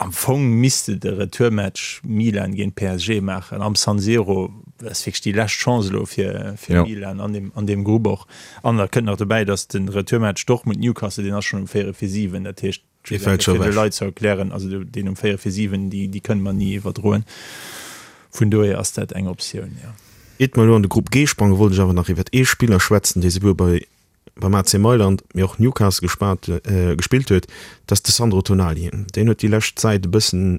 am Fong misst de de Retourmatch Milan géint PSG maachen am San Siro. Dat ass wierklech déi lescht Chance elo fir, fir Milan an deem, an deem Grupp och. An da kënnt nach dobäi, datt de Retourmatch Dortmund-Newcastle, deen ass schonn um véierel vir 7. Dat heescht,
Dee fält scho
fir de
ewech.
Leit ze erklären, also deen um 4 vir 7, déi, déi kënne mer ni iwwerdroen. Vun dohier ass dat eng Optioun, jo.
Iert mer elo an de Grupp G sprangen, wollt ech awer nach iwwert ee Spiller schwätzen, dee souwuel bei beim AC Mailand, mee och Newcastle gespaat, gespillt huet. Dat ass de Sandro Tonali. Deen huet déi lescht Zäit e bëssen,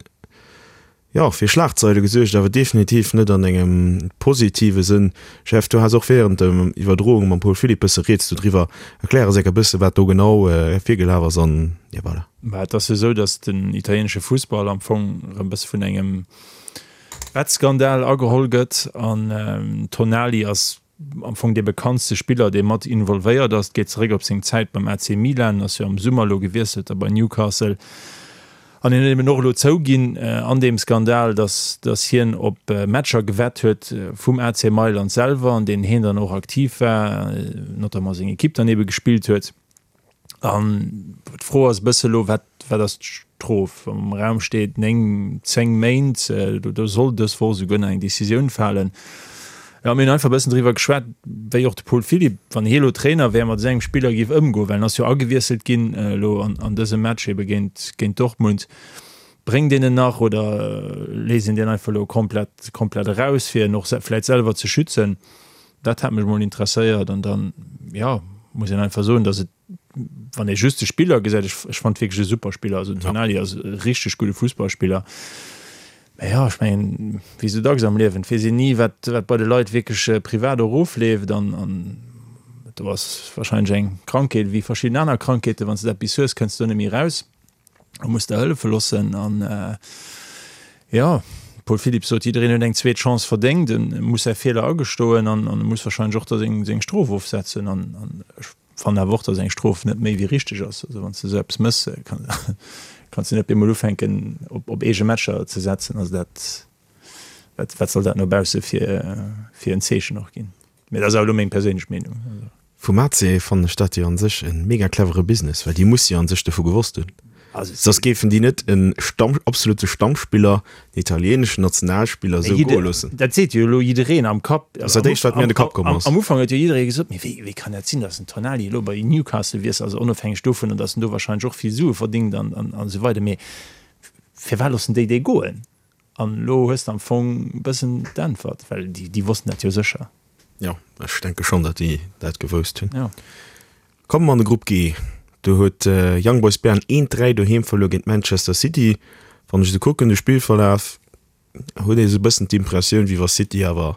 Jo, fir Schlagzeile gesuergt, awer definitiv net an engem positive Sënn. Jeff, du has och während der Iwwerdroung mam Paul Philipp bësse rieds dodriwwer. Erklär eis enk e bësse wat do genau virgelaf ass an jo voilà.
Bah, et ass jo esou, datt den italienesche Fussball am Fong erëm bësse vun engem Wettskandal ageholl gëtt an Tonali ass am Fong dee bekanntste Spiller, dee mat involvéiert ass. Et geet zeréck op seng Zäit beim AC Milan, ass jo am Summer elo gewiesselt da bei Newcastle. An hien huet eben och elo zouginn an deem Skandal, datt datt hien op Matcher gewett huet vum AC Mailand selwer, an deenen hien dann och aktiv war, notamment seng Ekipp dann ebe gespillt huet. An d'Fro ass e bësse elo, wat, wat ass d'Strof? Am Raum steet 9, 10 Méint. Do soll dës Woch esouguer nach eng Decisioun falen. Jo, mir hunn einfach e bëssen driwwer geschwat, wéi och de Paul Philipp, wann hie elo Trainer wär, mat esou engem Spiller géif ëmgoen, well en ass jo agewiesselt ginn elo an, an dësem Match ebe géint, géint Dortmund. Bréngt een en nach oder léisst een deen einfach elo komplett, komplett eraus, fir en och vläicht selwer ze schützen? Dat hat mech mol interesséiert an dann, jo, muss een einfach soen, dass et, wann ee just de Spiller gesäit, ech, ech fand wierklech e super Spiller, also den Tonali ass e richteg gudde Fussballspiller, mä jo, ech mengen, wéi esou dacks am Liewen, et weess een ni, wat, wat bei de Leit wierklech privat och ofleeft an, an do ass wahrscheinlech eng Krankheet wéi verschidden aner Krankheeten, wann s de eppes hues, kënns de do net méi eraus. A muss der hëllefe loossen. An jo, Paul Philipp sot, jiddereen huet eng zweet Chance verdéngt, e muss säi Feeler agestoen an e muss warscheinlech och da seng seng Strof ofsetzen. An ech fannen awer och, datt eng Strof net méi wéi richteg ass. Also wann s de esou eppes méchs, kanns de net op eemol ufänken op op eege Matcher ze setzen. Also dat, wat wat soll dat no bausse fir fir en Zeechen och ginn? Mee dat ass awer elo meng perséinlech Meenung.
Vum AC fannen ech dat jo an sech en mega clevere Business, well déi musse jo an sech dovu gewosst hunn, soss géifen déi net en Stamm, absolute Stammspiller, en italieneschen Nationalspiller esou goe loossen.
Dat seet jo elo jiddereen am Kapp.
Dat ass dat éischt wat mir an de Kapp komm ass.
Am Ufank huet jo jidderee gesot, mee wéi, wéi kann dat sinn, datt den Tonali elo bei Newcastle wiesselt, also onofhängeg dovunner, datt en do wahrscheinlech och vill Sue verdingt an, an, an esou weider, mee firwat loossen déi dee goen? An elo hues de am Fong e bëssen d'Äntwert, well déi, déi wossten dat jo sécher.
Jo, ech denke schonn, datt déi dat gewousst hunn.
Jo.
Komme mer an de Grupp G. Do huet Young Boys Bern 1, 3 doheem verluer géint Manchester City. Wann ech esou kucken, de Spillverlaf, huet ee sou e bëssen d'Impressioun, wéi wa City awer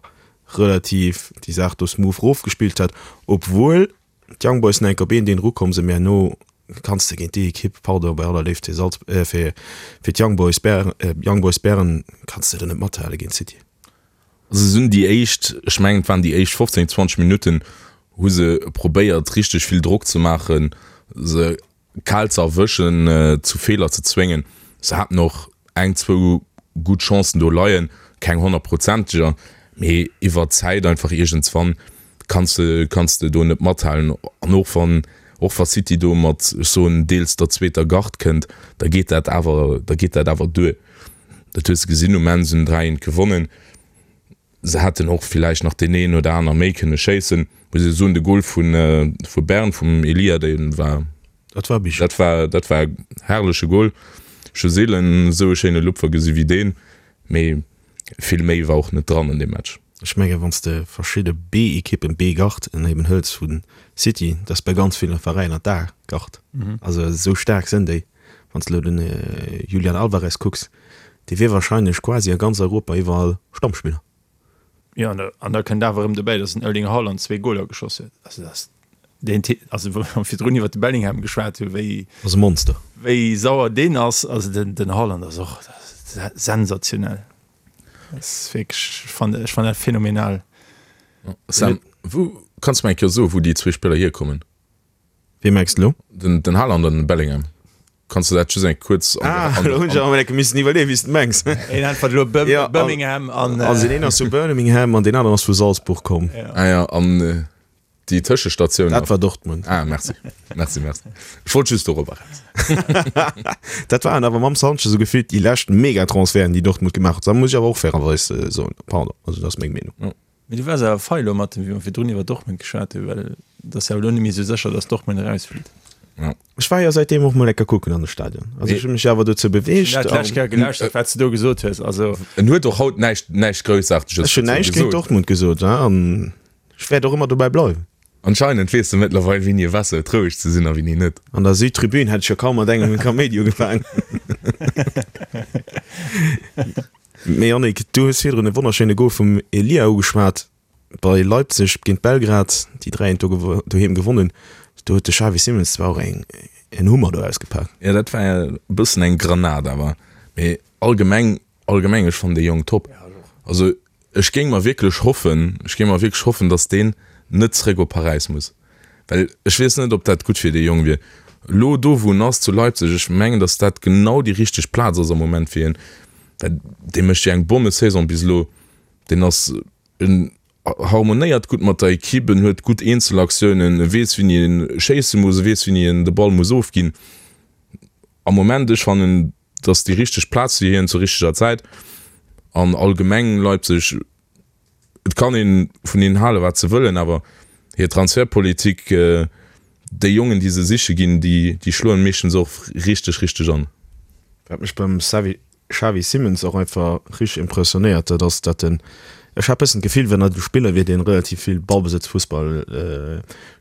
relativ déi Saach do smooth rofgespillt hätt, obwuel D'Young Boys sinn enk op een deen erukomm sinn, mee herno kanns de géint déi Ekipp, pardon, bei aller Léift fir Salz, fir fir d'Young Boys Bern, Young Boys Bern, kanns de do net mathale géint City.
Also se hunn déi éischt, ech mengen et waren déi éischt 15, 20 Minutten, hu se probéiert richteg vill Drock ze maachen, se kal ze erwëschen, zu Feeler ze zwéngen. Se haten och eng, zwou gutt Chancen do leien, keng honnertprozenteger, mee iwwer d'Zäit einfach iergendswann kanns de, kanns de do net mathalen. An och wann, och wa City do mat, ech soen, deels der zweeter Garde kënnt, da geet dat awer, da geet dat awer duer. Dat hues de gesinn, um Enn se hunn 3, 1 gewonnen. Se hätten och villäicht nach deen een oder aner méi kënne schéissen. Muss ee soen, de Gol vu vu Bern vum Elia, dee war,
Dat war
dat war, dat war e herrleche Gol. Ech hu seelen esou e schéine Lupfer gesi wéi deen. Mee vill méi war och net dran an deem Match.
Ech mengen, wann s de verschidde B-Ekippen, B-Gard eben hëls vu City, dat ass bei ganz ville Veräiner d'A-Gard. Also esou staark sinn déi. Wann s de elo den Julian Alvarez kucks, dee wier wahrscheinlech quasi a ganz Europa iwwerall Stammspiller.
Jo, an da kënnt awer erëm dobäi, datt den Erling Haaland zwee Goler geschoss huet. Also dat ass deen Typ, also wou mer virdrun iwwer de Bellingham geschwat hunn, wéi.
Ass e Monster.
Wéi sauer deen ass. Also den, den Haaland ass och sensationell. Dat ass wierklech, ech fannen, ech fannen dat phänomenal.
Sam, wou, kanns de mer eng Kéier soen, wou déi zwee Spiller hierkommen?
Wee mengs de elo?
Den, den Haaland an den Bellingham. Kanns de dat just eng kuerz
an Ah, elo hunn ech awer emol enke missen iwwerleeën, wéi s de mengs.
Een äntwert elo Birmingham an.
Also deen een ass vu Birmingham an deen aneren ass vu Salzburg komm.
Ah ja, an déi Tëschestatioun.
Dat war Dortmund.
Ah, merci. Merci, merci. Ech wollt just dorobber eraus.
Dat waren awer mam Sanchez esou gefillt déi lescht Megatransferten, déi Dortmund gemaach huet. Dat muss ech awer och fairerweis soen. Pardon, also dat ass meng Meenung.
Mee du waars awer fei elo mat dem, wéi mer virdrun iwwer Dortmund geschwat hunn, well et ass jo elo net méi esou sécher, datt Dortmund erausflitt.
Ja. Ech war jo säitdeem och mol enker kucken an de Stadion. Also ech hu mech awer dozou beweegt.
Ech hunn dat d'lescht Kéier gelauschtert, wat s de do gesot hues. Also.
En huet och haut näischt, näischt Groussaarteges
Ech hunn näischt géint Dortmund gesot an ech wäert och ëmmer dobäi bleiwen.
Anscheinend weess de mëttlerweil, wéini e besser huet roueg ze sinn a wéini net.
An der Südtribün hätt ech jo kaum mat engem e Kaméidi ugefaangen. Mee Yannick, du hues virdrun e wonnerschéine Gol vum Elia ugeschwat bei Leipzig géint Belgrad, déi 3 eent do doheem gewonnen. Do huet de Xavi Simons zwar och eng en Hummer do ausgepak.
Jo, dat war e bëssen eng Granat awer. Mee allgemeng, allgemeng, ech fannen dee Jong top. Also ech géing mer wierklech hoffen, ech géing mer wierklech hoffen, datt deen net zréck op Paräis muss. Well ech weess net, ob dat gutt fir dee Jong wier. Elo do, wou en ass, zu Leipzig, ech mengen, datt dat genau déi richteg Plaz ass am Moment fir hien. Well dee mécht jo eng Bommesaison bis elo. Deen ass, en harmonéiert gutt mat der Equipe, en huet gutt Eenzelaktiounen, e weess, wéini e schéisse muss, e weess, wéini en de Ball muss ofginn. Am Moment, ech fannen, et ass déi richteg Plaz fir hien zur richteger Zäit. An allgemeng Leipzig, Et kann een vun hinnen halen, wat se wëllen, awer hir Transfertpolitik, déi Jongen, déi se siche ginn, déi schloen meeschtens och richteg, richteg an.
Wat mech beim Xavi Simons och einfach richteg impressionéiert, dat ass, datt en, ech hat bëssen d'Gefill, wann dat e Spiller wier, deen relativ vill Ballbesëtzfussball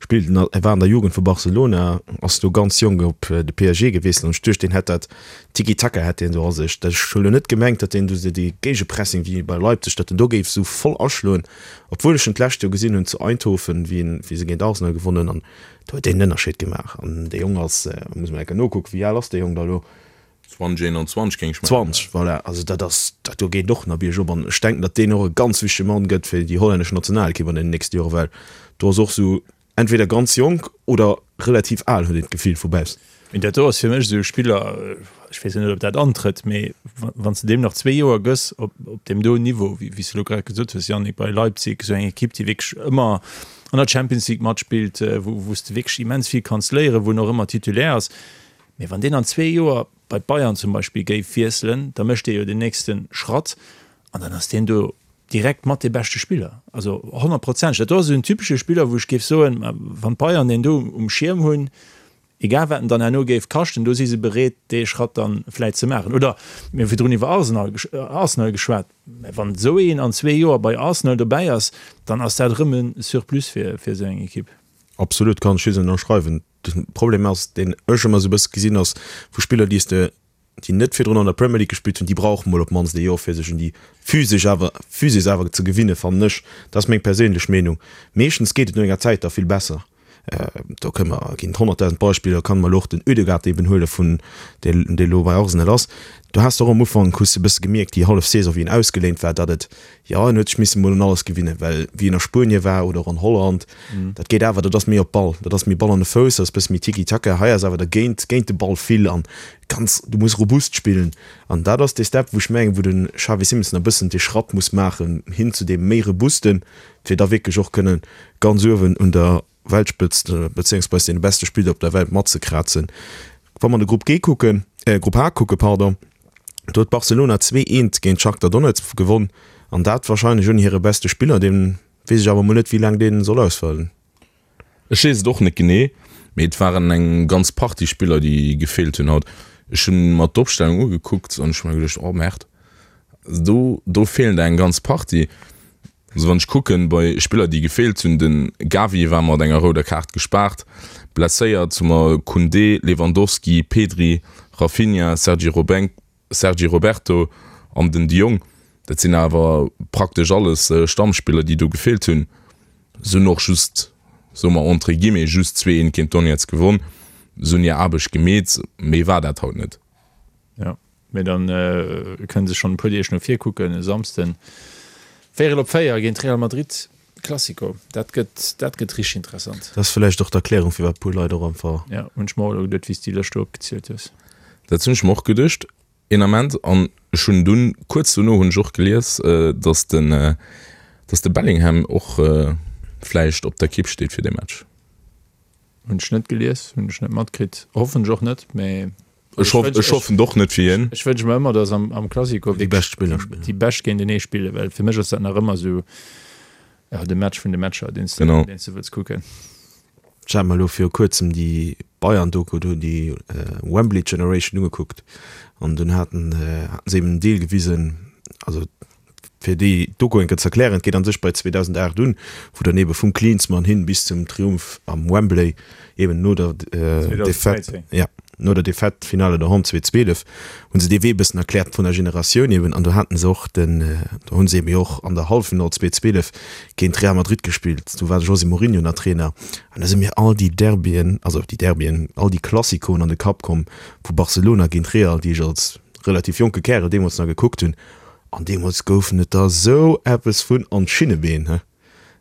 spillt, en war an der Jugend vu Barcelona, ass do ganz jonk op de PSG gewiesselt an ech duecht, deen hätt dat Tiki-Taka hätt deen do a sech. Ech hu lo net gemengt, datt deen do dee Géigepressing wéi bei Leipzig, datt en do géif esou voll aschloen, obwuel ech en d'lescht Joer gesinn hunn zu Eindhoven, wéi en, wéi se géint Arsenal gewonnen hunn an do huet deen en Ënnerscheed gemaach. An dee Jong ass, muss mer eng Kéier nokucken, wéi al ass dee Jong da lo?
20, 21 géing ech mengen.
20, voilà. Also dat ass, dat do geet och nach biergop an ech denken, datt deen och e ganz wichtege Mann gëtt fir déi hollännesch Nationalekipp an den nächste Joren, well do ass och esou Entweder ganz jonk oder relativ al, huet een d'Gefill vu baussen.
Mee dat do ass fir mech esou e Spiller, ech weess jo net, ob dat antrëtt, mee wann s de deem nach zwee Joer gëss op deem do Niveau, wéi s de elo grad gesot hues, Yannick, bei Leipzig, esou eng Ekipp, déi wierklech ëmmer an der Champions League matspillt, wou s de wierklech immens vill kanns léieren, wou en och ëmmer Titulaire ass, mee wann deen an zwee Joer bei d'Bayern zum Beispill géif wiesselen, da mécht dee jo den nächste Schratt an dann ass deen do direkt mat dee beschte Spiller, also honnertprozenteg. Dat do ass esou en typesche Spiller, wou ech géif soen, wann d'Bayern deen do um Schierm hunn, egal wat en dann herno géif kaschten, do si se bereet, dee Schratt dann vläit ze maachen. Oder mir hu virdrun iwwer Arsenal Arsenal geschwat, mä wann esou een an zwee Joer bei Arsenal dobäi ass, dann ass dat erëm e Surplus fir esou eng Ekipp.
Absolut, kann ech just ënnerschreiwen. De Problem ass, deen ech ëmmer esou e bësse gesinn ass, vu Spiller, déi s de déi net virdrun an der Premier League gespillt hunn, déi brauche mol op d'mannst ee Joer fir sech un déi physesch awer Physis awer ze gewinne fannen ech. Dat ass meng perséinlech Meenung. Meeschtens geet et no enger Zäit da vill besser. Do kënne mer, ginn et 100.000 Beispiller, kann mer elo och den Ødegaard eben huele vun dee dee elo bei Arsenal ass. Do has de och am Ufank, hues de e bësse gemierkt déi hallef Saison wéi en ausgeléint war, datt et, jo en huet sech misse mol un alles gewinnen, well wéi en a Spuenie war oder och an Holland, Dat geet awer, dat ass méi op Ball, dat ass méi Ball an de Fouss, dat ass bësse méi Tiki-Taka. Hei ass awer dergéint, géint de Ball vill an ganz, du muss robust spillen. An dat ass dee Step, wou ech mengen, wou de Xavi Simons nach e bëssen dee Schratt muss maachen hin zu deem méi robusten, fir da wierklech och kënne ganz uewen un der Weltspëtzt, bezéiungsweis deene beste Spiller op der Welt matzekrazen. Wa mer de Grupp G kucken, Grupp H kucken, pardon, do huet Barcelona 2, 1 géint Shakhtar Donetsk gewonn an dat warscheinlech ouni hire beste Spiller, deen Weess ech awer mol net wéi laang deen soll ausfalen.
Ech weess et och net genee, mee et waren eng ganz Partie Spiller déi gefeelt hunn haut. Ech hunn mer d'Opstellung ugekuckt an ech hu mer geduecht, oh Merde, do do feelen der eng ganz Partie. Also wann ech kucken bei Spiller déi gefeelt hunn, den Gavi war mat enger rouder Kaart gespaart, blesséiert hu mer Koundé, Lewandowski, Pedri, Raphinha, Sergi Robenk, Sergi Roberto an den De Jong, dat sinn awer praktesch alles Stammspiller, déi do gefeelt hunn. Se hunn och just, soe mer entre guillemets, just 2, 1 géint Donetsk gewonn. Se hunn hir Aarbecht gemeet, méi war dat haut net.
Jo, mee dann kënne se schonn e puer Deeg no vir kucken. E Samsden véierel op 4 géint Real Madrid, Classico, dat gëtt, dat gëtt richteg interessant.
Dat ass vläicht och d'Erklärung, firwat e puer Leit och einfach.
Jo, hunn ech mer och elo geduet, wéi s de déi Lëscht do opgezielt hues.
Dat hunn ech mer och geduecht een Ament an ech hunn dunn kuerz dono hunn ech och gelies, datt den, datt de Bellingham och vläicht op der Kipp steet fir dee Match.
Hunn ech net gelies, hunn ech net matkritt, hoffen ech och net, mä
Ech hoff, ech hoffen et och net fir hien.
Ech wënsche mer ëmmer, datt am, am Classico
Déi bescht Spiller spillen.
déi bescht géintenee spillen, well fir mech ass dat nach ëmmer esou, jo, de Match vun de Matcher, deen s de,
Genau.
deen s de wëlls kucken.
Ech hat mer elo viru kuerzem déi Bayern-Doku do, déi Wembley Generation ugekuckt an dunn haten haten se eben en Deel gewisen, also fir déi Doku eng Kéier ze erklären, et geet an sech bei 2008 un, wou dann ebe vum Klinsmann hin bis zum Triumph am Wembley, eben no der Defaite,
2013.
ja, no der Defaite, Finale doheem 2012, hu se dee Wee e bëssen erkläert vun der Generatioun eben an do haten se och den, do hu se eben jo och an der Halleffinall 2012 géint Real Madrid gespillt, do war de José Mourinho nach Trainer an da si mir all déi Derbyen, also déi Derbyen, all déi Classicoen an de Kapp komm vu Barcelona géint Real, déi ech als relativ jonke Kärel deemools nach gekuckt hunn an deemools goufen et der esou eppes vun an d'Schinnebeen, he.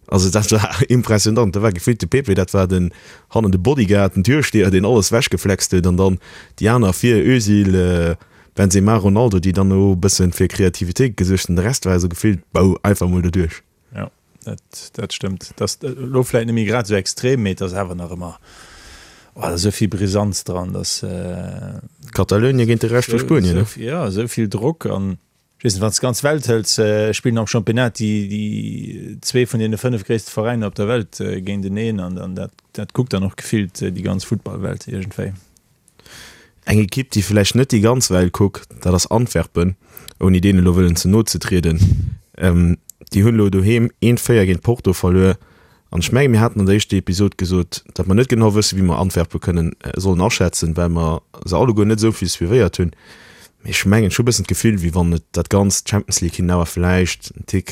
Also dat war impressionant, da war gefillt de Pepe, dat war den hannen de Bodyguard, den Türsteher, deen alles wechgeflext huet an dann déi aner vir, Özil, Benzema, Ronaldo, déi dann elo e bëssen fir Kreativitéit gesuergt hunn. De Rest war esou gefillt, bou, einfach mol doduerch.
Jo, dat, dat stëmmt. Dat ass elo vläit net méi grad esou extrem, mee et ass awer nach ëmmer, oh, da ass esou vill Brisanz dran, dass.
Katalounien géint de Rescht vu Spuenien, ne?
Jo, esou vill Drock an Ech weess net, wann s de d'ganz Welt hëls, spillen am Championnat déi, déi zwee vun deene 5 gréisste Veräiner op der Welt géinteneen an dann dat, dat kuckt dann och gefillt déi ganz Futtballwelt iergendwéi.
Eng Ekipp, déi vläicht net déi ganz Welt kuckt, dat ass Antwerpen, ouni deenen elo wëllen ze no ze trieden. Déi hunn elo doheem 1, 4 géint Porto verluer. An ech mengen, mir haten an der éischter Episod gesot, datt mer net genau wëssen, wéi mer Antwerpen kënnen sollen aschätzen, well mer se alleguer net esou vill suivéiert hunn. Mee ech mengen, ech hu e bëssen d'Gefill, wéi wann et dat ganzt Champions League hinnen awer vläicht en Tick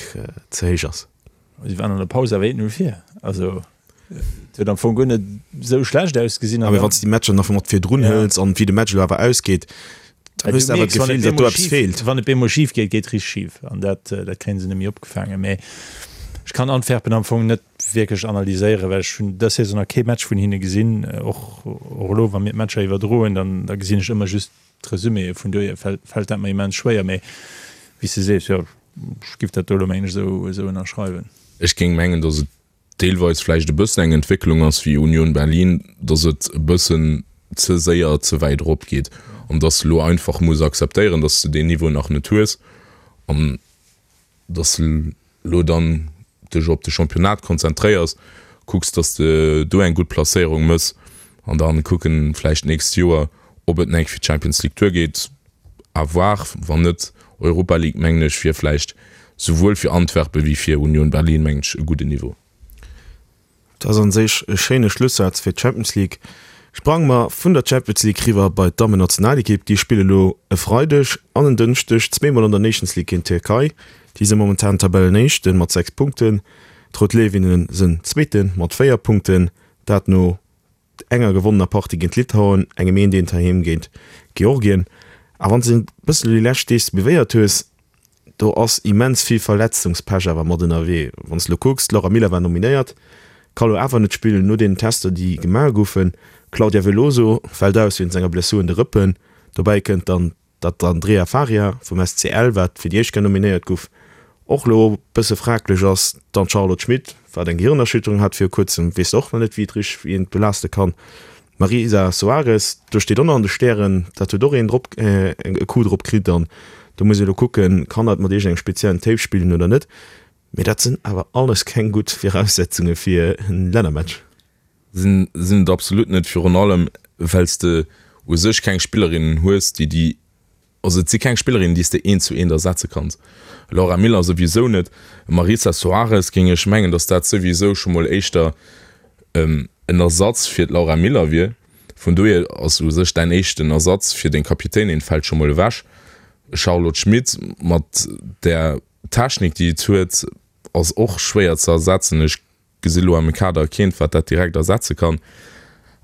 ze héich ass.
Si waren an der Paus awer 1-0 vir. Also et huet am Fong guer net esou schlecht ausgesinn.
Awer wann s de déi Matcher nach mat virdrun hëls an wéi de Match elo awer ausgeet, dann hues de awer d'Gefill, datt do eppes feelt.
Wann et bemol schif geet, geet richteg schif an dat dat kréien se net méi opgefaangen. Mee ech kann Antwerpen am Fong net wierklech analyséieren, well ech hunn dës Saison nach kee Match vun hinne gesinn. Och och elo, wa mir d'Matcher iwwerdroen, dann da gesinn ech ëmmer just d'Resuméë. Vun dohier fält fält dat mer immens schwéier. Mee wéi s de sees, jo, ech giff dat do elo mengen ech esou esou ënnerschreiwen.
Ech géing mengen, datt et deelweis vläicht e bëssen eng Entwécklung ass wéi Union Berlin, datt et e bëssen ze séier ze wäit erop geet an datt s de elo einfach muss akzeptéieren, datt s de deen Niveau nach net hues an datt s de elo dann dech op de Championnat konzentréiers, kucks, datt s de do eng gutt Placéierung mëss an dann kucken vläicht d'nächst Joer, ob et nach eng fir d'Champions League duergeet. À voir. Wann net Europa League, mengen ech, wier vläicht souwuel fir Antwerpen wéi fir Union Berlin, mengen ech, e gudden Niveau.
Dat ass an sech e schéine Schlussaz fir d'Champions League. Sprange mer vun der Champions League riwwer bei d'Dammennationalekipp. Déi spille lo e Freideg an en Dënschdeg zweemol an der Nations League géint d'Tierkei. Déi si momentan Tabellenéischte mat 6 Punkten. D'Rout Léiwinne sënn Zweete mat 4 Punkten. Dat no enger gewonnener Partie géint Litauen, engem eent eent heiheem géint Georgien. A wann s de e bëssen elo déi lescht Deeg suivéiert hues, do ass immens vill Verletzungspech awer mat ënnerwee. Wann s de elo kucks, d'Laura Miller war nominéiert, ka lo awer net spillen no deenen Tester, déi gemaach goufen. D'Claudia Veloso fält aus wéinst enger Blessur un de Rëppen. Dobäi kënnt dann Datt d'Andrea Faria vum SCL, wat fir déi éischt Kéier nominéiert guff, och lo bësse fraglech ass. Dann d'Charlotte Schmit, wat eng Gehirnerschütterung hat viru kuerzem, weess och nach net wéi et richteg wéi een et belaaste kann. D'Marisa Soares, do steet och nach an de Stären, dat huet och een drop e Coup drop kritt an do muss ee lo kucken, kann dat mat iergendengem speziellen Tape spillen oder net. Mee dat sinn awer alles keng gutt Viraussetzunge fir en Lännermatch.
Sinn et absolut net, virun allem well s de u sech keng Spillerinnen hues, déi déi, also et si keng Spillerinnen, déi s de eent zu eent ersetze kanns. Laura Miller souwisou net, Marisa Soares géing ech mengen, datt dat souwisou scho mol éischter en Ersatz fir d'Laura Miller wier. Vun dohier ass u sech däin éischten Ersatz fir deng Kapitänin fält scho mol ewech. Charlotte Schmit mat där Technik, déi et huet, ass och schwéier ze ersetzen. Ech Gesi lo am Kader keent wat dat direkt ersetze kann.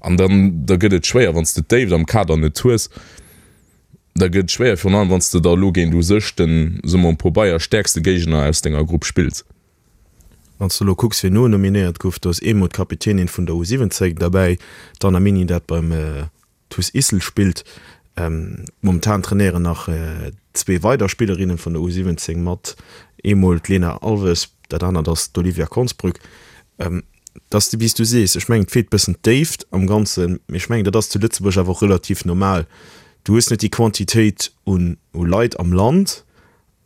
An dann da gëtt et schwéier wann s de d'Déift am Kader net hues. Da gëtt et schwéier virun allem wann s de da lo géint u sech den, soe mer um Pobeier, stäerkste Géigner aus denger Grupp spills.
Wann s de lo kucks wien no nominéiert gouf, do ass eemol d'Kapitänin vun der U 17 derbäi, d'Anna Mini, dat beim TuS Issel spillt. Momentan trainéieren nach zwee weider Spillerinne vun der U17 mat, eemol d'Lena Alves, dat anert ass d'Olivia Konsbrück. Et ass wéi s du sees, ech mengen et feelt bëssen d'Déift am Ganzen, mee ech mengen dat ass zu Lëtzebuerg awer och relativ normal. Du hues net déi Quantitéit un Leit am Land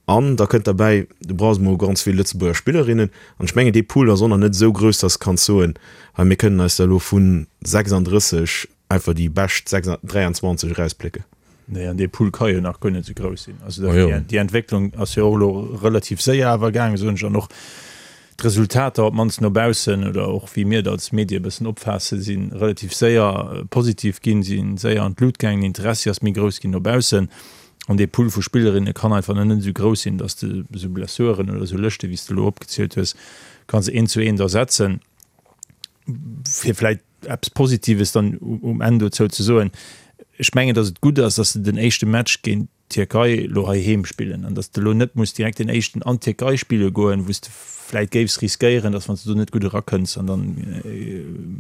An da kënnt derbäi, du brauchs emol ganz vill Lëtzebuerger Spillerinnen. An ech mengen, dee Pool ass och nach net esou grouss, dass de kanns soen, hei mir kënnen eis der elo vu 36 einfach déi bescht 23 erausplécken.
Nee, an dee Pool ka jo nach guer net esou grouss sinn. Also déi Entwécklung ass jo och elo relativ séier awer gaangen, soen ech. An och d'Resultater, op d'mannst no baussen oder och wéi mir et als Medie e bëssen opfaassen, si relativ séier positiv ginn, si séier an d'Lut gaangen, den Interessi ass méi grouss ginn no baussen. An dee Pool vu Spillerinne kann einfach net esou grouss sinn, datt s de esou Blessuren oder esou Lëschte wéi s de elo opgezielt hues, kanns eent zu eent ersetzen. Fir vläicht eppes Positives dann um Enn dozou ze soen, Ech mengen, datt et gutt ass, datt se den éischte Match géint d'Tierkei elo heiheem spillen an datt s de elo net muss direkt den éischten an d'Tierkei spille goen, wou s de vläicht géifs riskéieren, datt wann s de do net gutt erakënns an dann,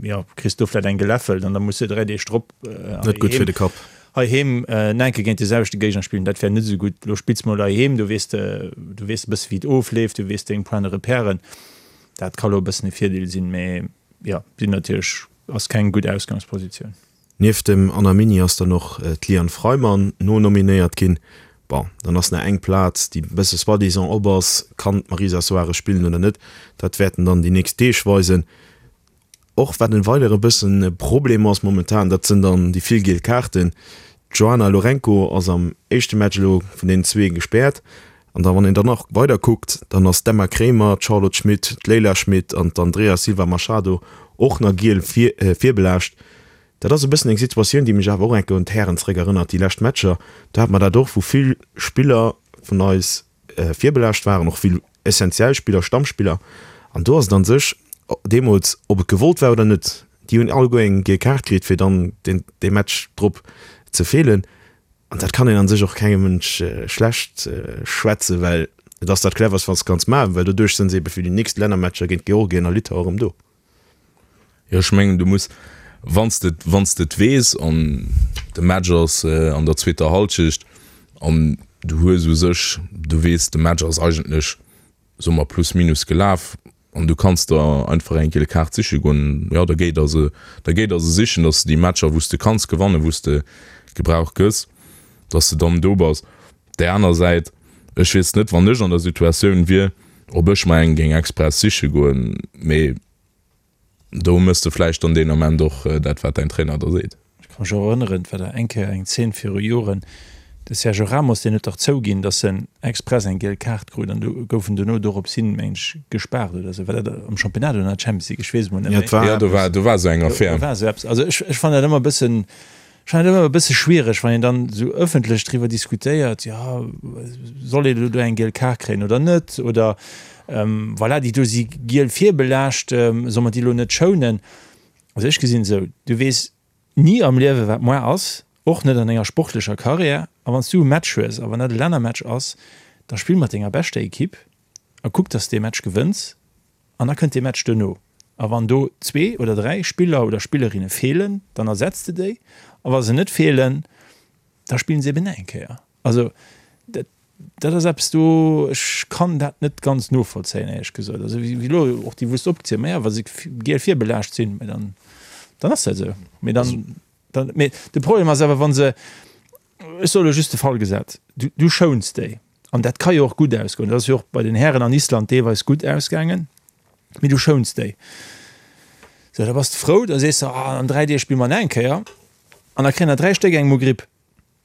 jo, kriss do vläicht eng geläffelt an da muss de 3 Deeg drop
Net gutt fir de Kapp.
Heiheem enke géint de selwechte Géigner spillen, dat wär net esou gutt. Elo spills mol heiheem, do weess de, du weess e bësse wéi et ofleeft, du weess deng Points de repèren. Dat ka lo e bëssen e Virdeel sinn, mee jo, sinn natierlech, ass keng gutt Ausgangspositioun.
Nieft dem Anna Mini ass dann och d'Liane Freimann nonominéiert ginn. Bon, dann ass nach eng Plaz, déi e bësse soi-disant op ass. Kann d'Marisa Soares spillen oder net? Dat wäerten dann déi nächst Deeg weisen. Och wat en weidere bëssen e Problem ass momentan, dat sënn dann déi vill giel Kaarten. D'Joana Lourenco ass am éischte Match elo vun deenen zwee gespäert. An da wann een dann nach weider kuckt, dann ass d'Emma Kremer, d'Charlotte Schmit, d'Leila Schmit an d'Andrea Silva Machado och nach giel virbelaascht. Dat ass e bëssen eng Situatioun, déi mech awer och enke un d'Hären zeréck erënnert, déi lescht Matcher. Do hate mer dat och, wou vill Spiller vun eis virbelaascht waren, och vill essentiell Spiller, Stammspiller. An do ass et an sech deemools, ob et gewollt war oder net, déi hunn alleguer eng giel Kaart kritt, fir dann deen dee Match drop ze feelen. An dat kann een an sech och kengem Mënsch schlecht schwätzen, well et ass dat cleverst, wat s de kanns maachen, well doduerch sinn se ebe fir déi nächst Lännermatcher géint Georgien a Litauen erëm do.
Jo, ech mengen, du muss, wann s de, wann s de et weess an de Match ass an der zweeter Hallschecht an du hues u sech, du weess, de Match ass eigentlech, soe mer, plus minus gelaf an du kanns der einfach eng giel Kaart siche goen, jo, da géi der se, da géi der se sichen, datt s de déi Matcher, wou s de kanns gewannen, wou s de gebraucht gëss, datt s de dann do bass. Op där aner Säit, ech weess net, wann ech an der Situatioun wier, ob ech mer eng géing express siche goen, mee do méchs de vläicht dann deen Ament och dat, wat däin Trainer der seet.
Ech ka mech och erënneren, et war da eng Kéier eng Zeen viru Joren, de Sergio Ramos, deen huet dach zouginn, datt en express eng giel Kaart krut an du gouf en dono dorops hin, meng ech, gespaart oder esou. War dat am Championnat oder an der Champions League? Ech weess et mol net
méi. Jo, do war, do war esou eng Affär.
Do war esou eppes. Also ech, ech fannen dat ëmmer e bëssen, Ech fannen et ëmmer e bësse schwiereg, wann een dann esou ëffentlech driwwer diskutéiert, jo, soll een elo do eng giel Kaart kréien oder net, oder voilà, déi do si giel virbelaascht, soll mer déi elo net schounen? Also ech gesinn et esou, du weess ni am Liewe wat moar ass, och net an enger sportlecher Karriär. A wann s du e Match hues, a wann dat e Lännermatch ass, da spill mat denger beschter Ekipp a kuck, dass de dee Match gewënns. An da kënnt dee Match duerno. A wann do zwee oder dräi Spiller oder Spillerinne feelen, dann ersetz de déi. A wa se net feelen, da spillen se eben nach eng Kéier. Also dat, dat ass eppes do, ech kann dat net ganz novollzéien, éierlech gesot. Also wéi elo och déi wou s de opgezielt, ma ja, wa se giel virbelaascht sinn, mä dann, dann ass dat esou. Mee dann, dann, mee de Problem ass awer, wa se, Ech soe lo just de Fall gesat, du, du schouns déi, an dat ka jo och gutt ausgoen, dat ass jo och bei den Hären an Island deelweis gutt ausgaangen, mee du schouns déi. Sou, da bass de frou, da sees de, ah, an 3 Deeg spille mer nach eng Kéier, an da kréien der 3 Stéck eng Mogripp.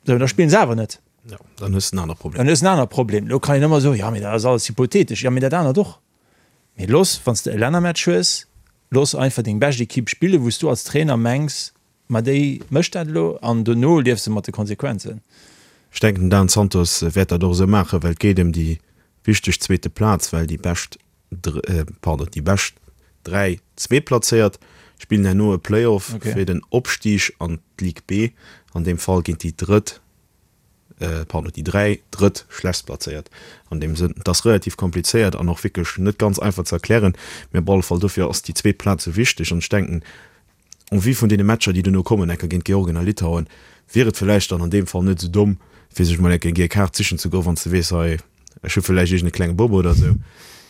Sou, da spillen se awer net.
Jo, dann hues de en anere
Problem. Dann hues de en anere Problem. Elo kann een ëmmer soen, jo, mee dat ass alles hypothetesch. Jo, mee dat anert och. Mee looss, wann s de e Lännermatch hues, looss einfach deng bescht Ekipp spillen, wou s du als Trainer mengs, Ma déi mécht dat elo an dono lieft se mat de Konsequenzen.
Ech denken den Dan Santos wäert dat och esou maachen, well et geet ëm déi wichteg zweete Plaz, well déi bescht, pardon, déi bescht 3 Zweetplazéiert spillen herno e Playoff fir den Opstig an d'Ligue B, an deem Fall géint déi drëtt, pardon, déi 3 drëtt schlechtstplazéiert an deem Sënn. Et ass relativ komplizéiert an och wierklech net ganz einfach ze erklären, mee op alle Fall dofir ass déi zweet Plaz esou wichteg an ech denken. En vue vun deene Matcher, déi duerno kommen, enker géint Georgien a Litauen, wier et vläicht dann an deem Fall net esou domm, fir sech mol enker eng giel Kaart sichen ze goen, wann s de weess, hei, ech hu vläicht iergend e klenge Bobo oder esou.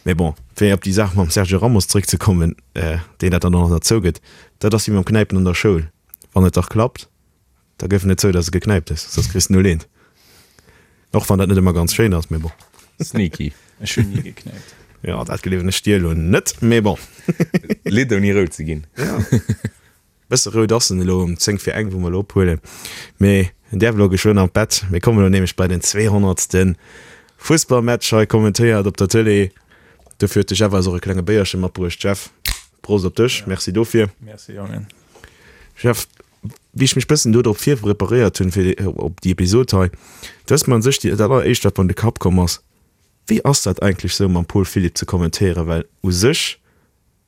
Mee bon, fir op déi Saach mam Sergio Ramos zréckzekommen, deen dat dann och nach zougëtt, dat ass wéi mam Knäipen an der Schoul, Wann et dach klappt, Da gëff net zou, dass e geknäipt hues, soss kriss de null eent. Och wann dat net ëmmer ganz schéin ass, mee bon.
Sneaky.
Ech hunn ni geknäipt.
Jo, dat gleewen ech dir elo net, mee bon.
Lidd ouni rout ze ginn.
Jo, bësse rout ass en elo um 10 vir eng, wou mer elo ophuelen. Mee en däerf elo geschwënn an d'Bett. Mir kommen elo nämlech bei den 200. Fussballmatch hei kommentéiert op der Tëlee. Dofir huet de Jeff eis och e klenge Béierche matbruecht. Jeff, Prost op dech, merci dofir.
Merci, Jongen.
Jeff, Wéi ech mech bëssen do drop virpreparéiert hunn fir op déi Episod hei, do ass mer un sech dat alleréischt wat mer an de Kapp komm ass, Wéi ass dat eigentlech sou mam Paul Philipp ze kommentéieren, well u sech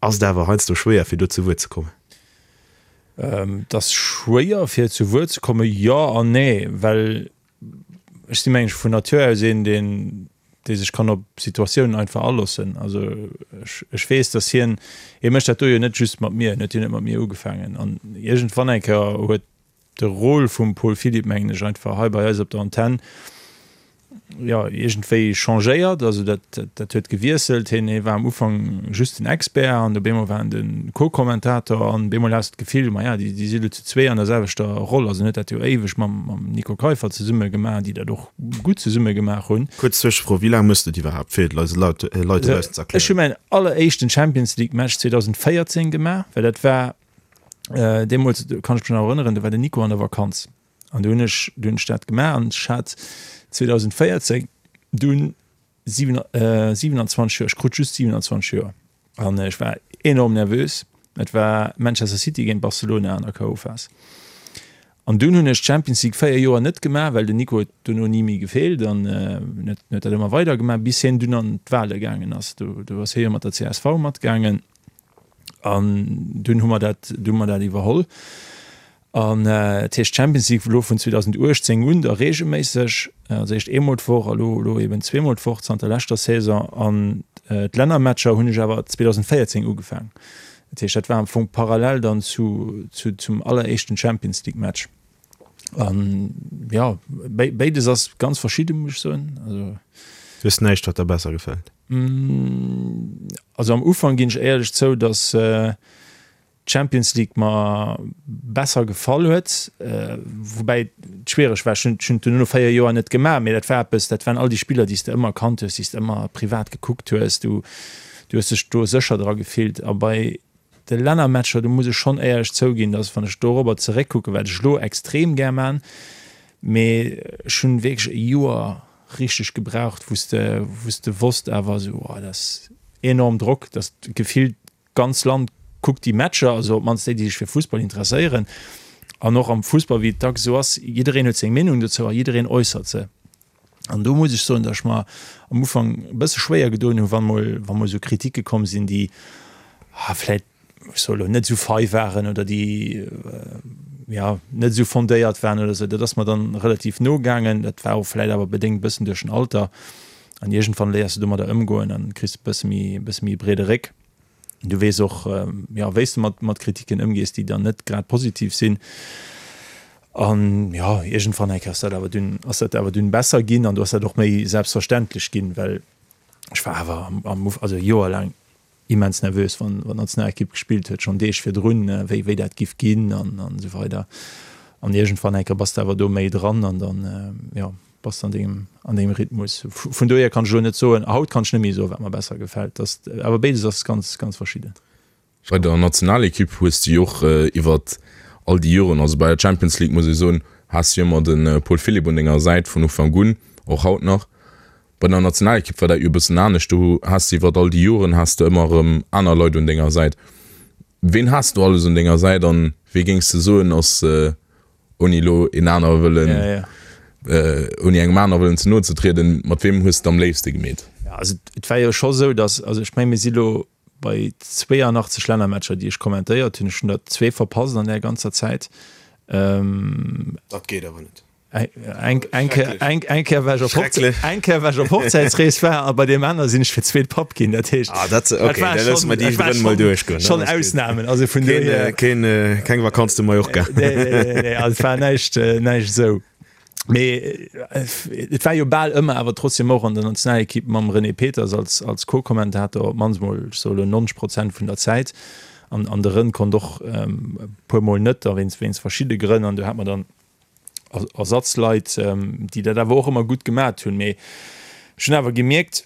ass et awer heiansdo schwéier fir do zu Wuert ze kommen.
Et ass schwéier fir zu Wuert ze kommen, jo an nee, well ech si mengen ech vun Natur aus een deen dee sech kann op Situatiounen einfach aloossen. Also ech, ech weess, datt hien, hie mécht dat do jo net just mat mir, hien huet jo net mat mir ugefaangen an iergendwann eng Kéier huet de Rôle vum Paul Philipp, mengen ech, einfach hei bei eis op der Antenn, jo, iergendwéi changéiert. Also dat, dat huet gewiesselt. Hien, hie war am Ufank just den Expert an op eemol war en de Co-Kommentator an op eemol has de d'Gefill, ma ja, déi, déi si lo zu zwee an der selwechter Roll. Also en huet dat jo éiweg mam, mam Nico Keiffer zesumme gemaach, déi dat och gutt zesumme gemaach hunn.
Kuerz Zwëschefro, Wéi laang méchs de et iwwerhaapt, fir et eise Leit dobaussen ze
erklären? Ech hu mäin alleréischten Champions League Match 2014 gemaach, well dat war deemools, do kann ech mech nach erënneren, do war den Nico an der Vakanz an do hunn ech, do hunn ech dat gemaach an ech hat 2014 dunn 27 Joer, ech krut just 27 Joer an ech war enorm nervös. Et war Manchester City géint Barcelona an der KO-Phas. An dunn hunn ech d'Champions League 4 Joer net gemaach, well den Nico huet dono ni méi gefeelt an huet huet dat ëmmer weider gemaach, bis hien dunn an d'Wale gaangen ass. Do do ass hie jo mat der csv matgaangen an dunn hu mer dat, du hu mer dat iwwerholl. An dat heescht d'Champions League elo vun 2018 un da reegelméisseg, also éischt eemol d'Woch a lo elo eben zweemol d'Woch zanter leschter Saison. An d'Lännermatcher hunn ech awer 2014 ugefaang. Dat heescht, dat war am Fong parallel dann zu, zu, zum alleréischten Champions League Match. An ja, béides ass ganz verschidde, muss ech soen. Also.
Du hues näischt, wat der besser gefält?
Also am Ufank ginn ech éierlech zou, datt d'Champions League mer besser gefall huet, woubäi et schwiereg war. Ech hunn et duerno no 4 Joer net gemaach, mee dat war eppes, dat waren all déi Spiller, déi s de ëmmer kannt hues, déi s de ëmmer privat gekuckt hues. Du, du hues dech do sécher dra gefillt. A bei de Lännermatcher, do muss ech schonn éierlech zouginn, dass, wann ech dorobber zeréckkucken, wat ech elo extrem gär man, mee ech hunn wierklech e Joer richteg gebraucht, wou s de, wou s de wosst awer esou, oh, dat ass enorm Drock, dass gefillt D'ganz Land kuckt déi Matcher, also op d'mannst déi, déi sech fir Fussball interesséieren. An och am Fussball, wéi et dacks esou ass, jiddereen huet seng Meenung dozou a jiddereen äussert se. An do muss ech soen, datt ech mer am Ufank e bësse schwéier gedoen hu wann mol, wa mol esou Kritike komm sinn, déi vläicht, ech soe lo, net esou fei waren oder déi, jo, net esou fondéiert waren oder esou. Dat ass mer dann relativ no gaangen. Dat war och vläicht awer bedéngt e bëssen duerch den Alter. An iergendwann léiers de domadder ëmgoen an kriss e bësse méi, e bësse méi e breede Réck. Du weess och, jo, wéi s de mat, mat Kritiken ëmgees, déi dann net grad positiv sinn. An jo, iergendwann eng Kéier ass dat awer dunn, ass dat awer dunn besser ginn an du ass dat och méi selbstverständlech ginn, well ech war awer am, am Uf-, also Joer laang immens nervös, wann, wann d'Nationalekipp gespillt huet, schonn Deeg virdrun, wéi, wéi dat giff ginn an, an esou weider. An iergendwann eng Kéier bass de awer do méi dran an dann, jo. Bass de an dengem, an dengem Rhythmus. Vun dohier kann ech elo net soen, haut kann ech net méi soen, wat mer besser gefält. Dass, awer béides ass ganz, ganz verschidden.
Bei der Nationalekipp hues de jo och iwwert all déi Joren, also bei der Champions League muss ee soen, has de jo ëmmer de Paul Philipp un denger Säit vun Ufank un, och haut nach. Bei der Nationalekipp war dat jo e bëssen anescht, do has de iwwert all déi Joren has de ëmmer erëm aner Leit un denger Säit. Ween has du alles un denger Säit an wee géings de soen ass Ouni elo een aner wëllen,
ja, ja.
Äh, ouni engem aner wëllen ze no ze trieden, mat weem hues de am léifste gemeet?
Ja, also et war jo scho sou, datt, also ech meng mir si lo bei 82 Lännermatcher, déi ech kommentéiert hunn. Ech hunn der zwee verpasst an där ganzer Zäit.
Ähm, Dat geet awer net.
Eng eng eng eng Kéier war ech op Hochze eng Kéier war ech op Hochzäitsrees war a bei deem aner sinn ech fir d'zweet Papp ginn. Dat heescht
Ah, dat, okay,
war
da loosse mer déi
dat war
Grënn mol
schon,
duerchgoen.
schon
Dann ass gutt.
Ausnamen. Also vun
Keen,
dohier
keen, keng Vakanz zu Mallorca.
Nee, nee, nee, nee, also et war näischt, näischt esou. Mee et war jo bal ëmmer awer trotzdem och an der Nationalekipp mam René Peters als, als Co-Kommentator, op d'mannst mol, ech soe lo 90 Prozent vun der Zäit. An, an de Rën konnt och e puermol net, da wéinst, wéinst verschidde Grënn. An do hat mer dann Ersatzleit, déi dat awer och ëmmer gutt gemat hunn. Mee ech hunn awer gemierkt,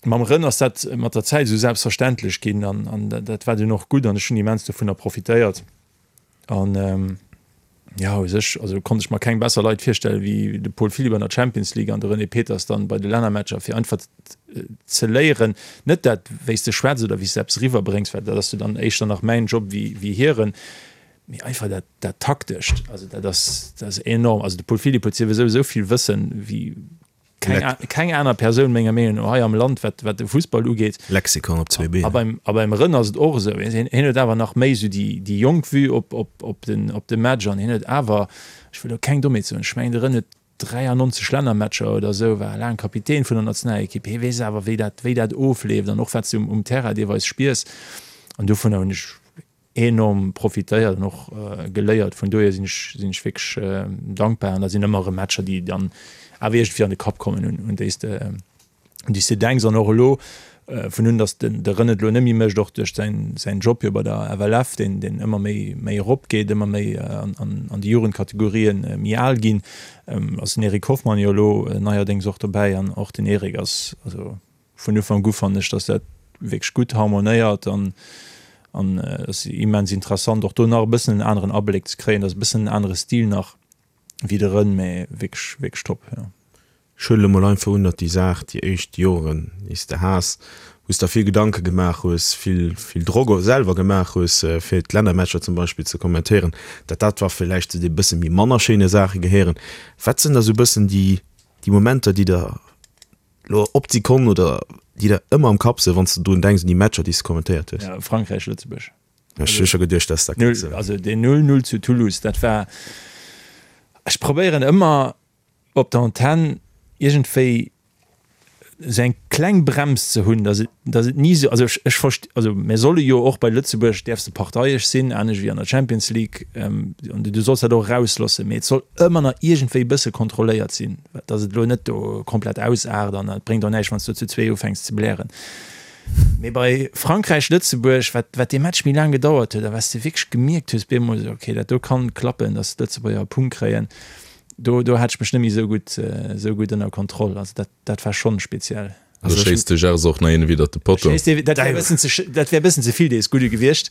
mam Rën ass dat mat der Zäit esou selbstverständlech ginn an, an dat war dunn och gutt an ech hunn immens dovunner profitéiert. An jo, u sech, also konnt ech mer keng besser Leit virstellen, wéi de Paul Philipp an der Champions League an de René Peters dann bei de Lännermatcher, fir einfach ze léieren, net dat, wéi s de schwätz oder wéi s de eppes eriwwerbréngs, well dat ass jo dann éischter nach mäin Job wéi, wéi hiren, mee einfach dat, dat Taktescht, also dat ass, dat ass enorm. Also de Paul Philipp huet souwisou esou vill Wëssen wéi keng, keng aner Persoun menger Meenung no hei am Land, wat, wat de Fussball ugeet.
Lexikon op zwee Been.
A beim, a beim Rën ass et och esou. Hien, hien huet awer nach méi esou déi, déi jonk Vue op, op, op den, op de Match an hien huet awer, ech wëll elo keng Dommheet soen, ech mengen de Rën huet 93 Lännermatcher oder esou, war laang Kapitän vun der Nationalekipp. Hie weess awer, wéi dat, wéi dat ofleeft an och wat s de um, um Terrain deelweis spiers. An dovunner hunn ech enorm profitéiert an och geléiert. Vun dohier sinn ech, sinn ech wierklech dankbar. An da sinn ëmmer erëm Matcher, déi dann awer iergendwéi an de Kapp kommen, un, un déi s de, un déi s de denks. An och elo, vun un datt den, de René et elo net méi mécht, och duerch säin, säin Job jo bei der FLF, deen, deen ëmmer méi, méi eropgeet, ëmmer méi an, an, an déi Jugendkategorien méi al ginn, ass den Eric Hoffmann jo elo neierdéngs och dobäi. An och den Eric ass, also Vun Ufank u fannen ech, dass dat wierklech gutt harmonéiert an an et ass immens interessant och do nach e bëssen en aneren Abléck ze kréien. Dat ass e bëssen en anere Stil nach wéi de Rën, mä wierklech, wierklech top, jo.
Ech huelen elo mol einfach un, datt déi Saach déi éischt Joren, déi s de has, wou s der vill Gedanke gemaach hues, vill, vill Drock och selwer gemaach hues, fir d'Lännermatcher zum Beispill ze kommentéieren, datt dat war villäicht zu de bësse méi manner schéine Saache gehéieren. Wat sinn da sou bëssen déi, déi Momenter, déi der Lo op d'Sekonn oder déi der ëmmer am Kapp sinn, wann s de drun denks un déi Matcher, déi s de kommentéiert hues?
Ja, Frankräich, Lëtzebuerg.
Ech hu scho geduecht, dass dat
kéint sinn. Also deen 0, 0 zu Toulouse, dat war, ech probéieren ëmmer op der Antenn iergendwéi esou eng kleng Brems ze hunn, dass et, dass et ni esou, also ech, ech verst-, also mir solle jo och bei Lëtzebuerg däerfs de parteiesch sinn, anescht wéi an der Champions League, an du solls dat och erausloossen, mee et soll ëmmer nach iergendwéi e bësse kontrolléiert sinn. Dass et elo net do komplett ausaart an et bréngt och näischt, wann s du zu zwee ufänks ze blären. Mee bei Frankräich-Lëtzebuerg, wat, wat dee Match méi laang gedauert huet a wat s de wierklech gemierkt hues bemol, esou okay, dat do kann klappen, dass d'Lëtzebuerger e Punkt kréien, do, do hat ech mech net méi esou gutt, esou gutt ënner Kontroll. Also dat, dat war schonn speziell.
Do schéisst de Gers och nach een widder de Potto.
Dat wär e bëssen ze, dat wär e bëssen ze vill dees Gudde gewiescht.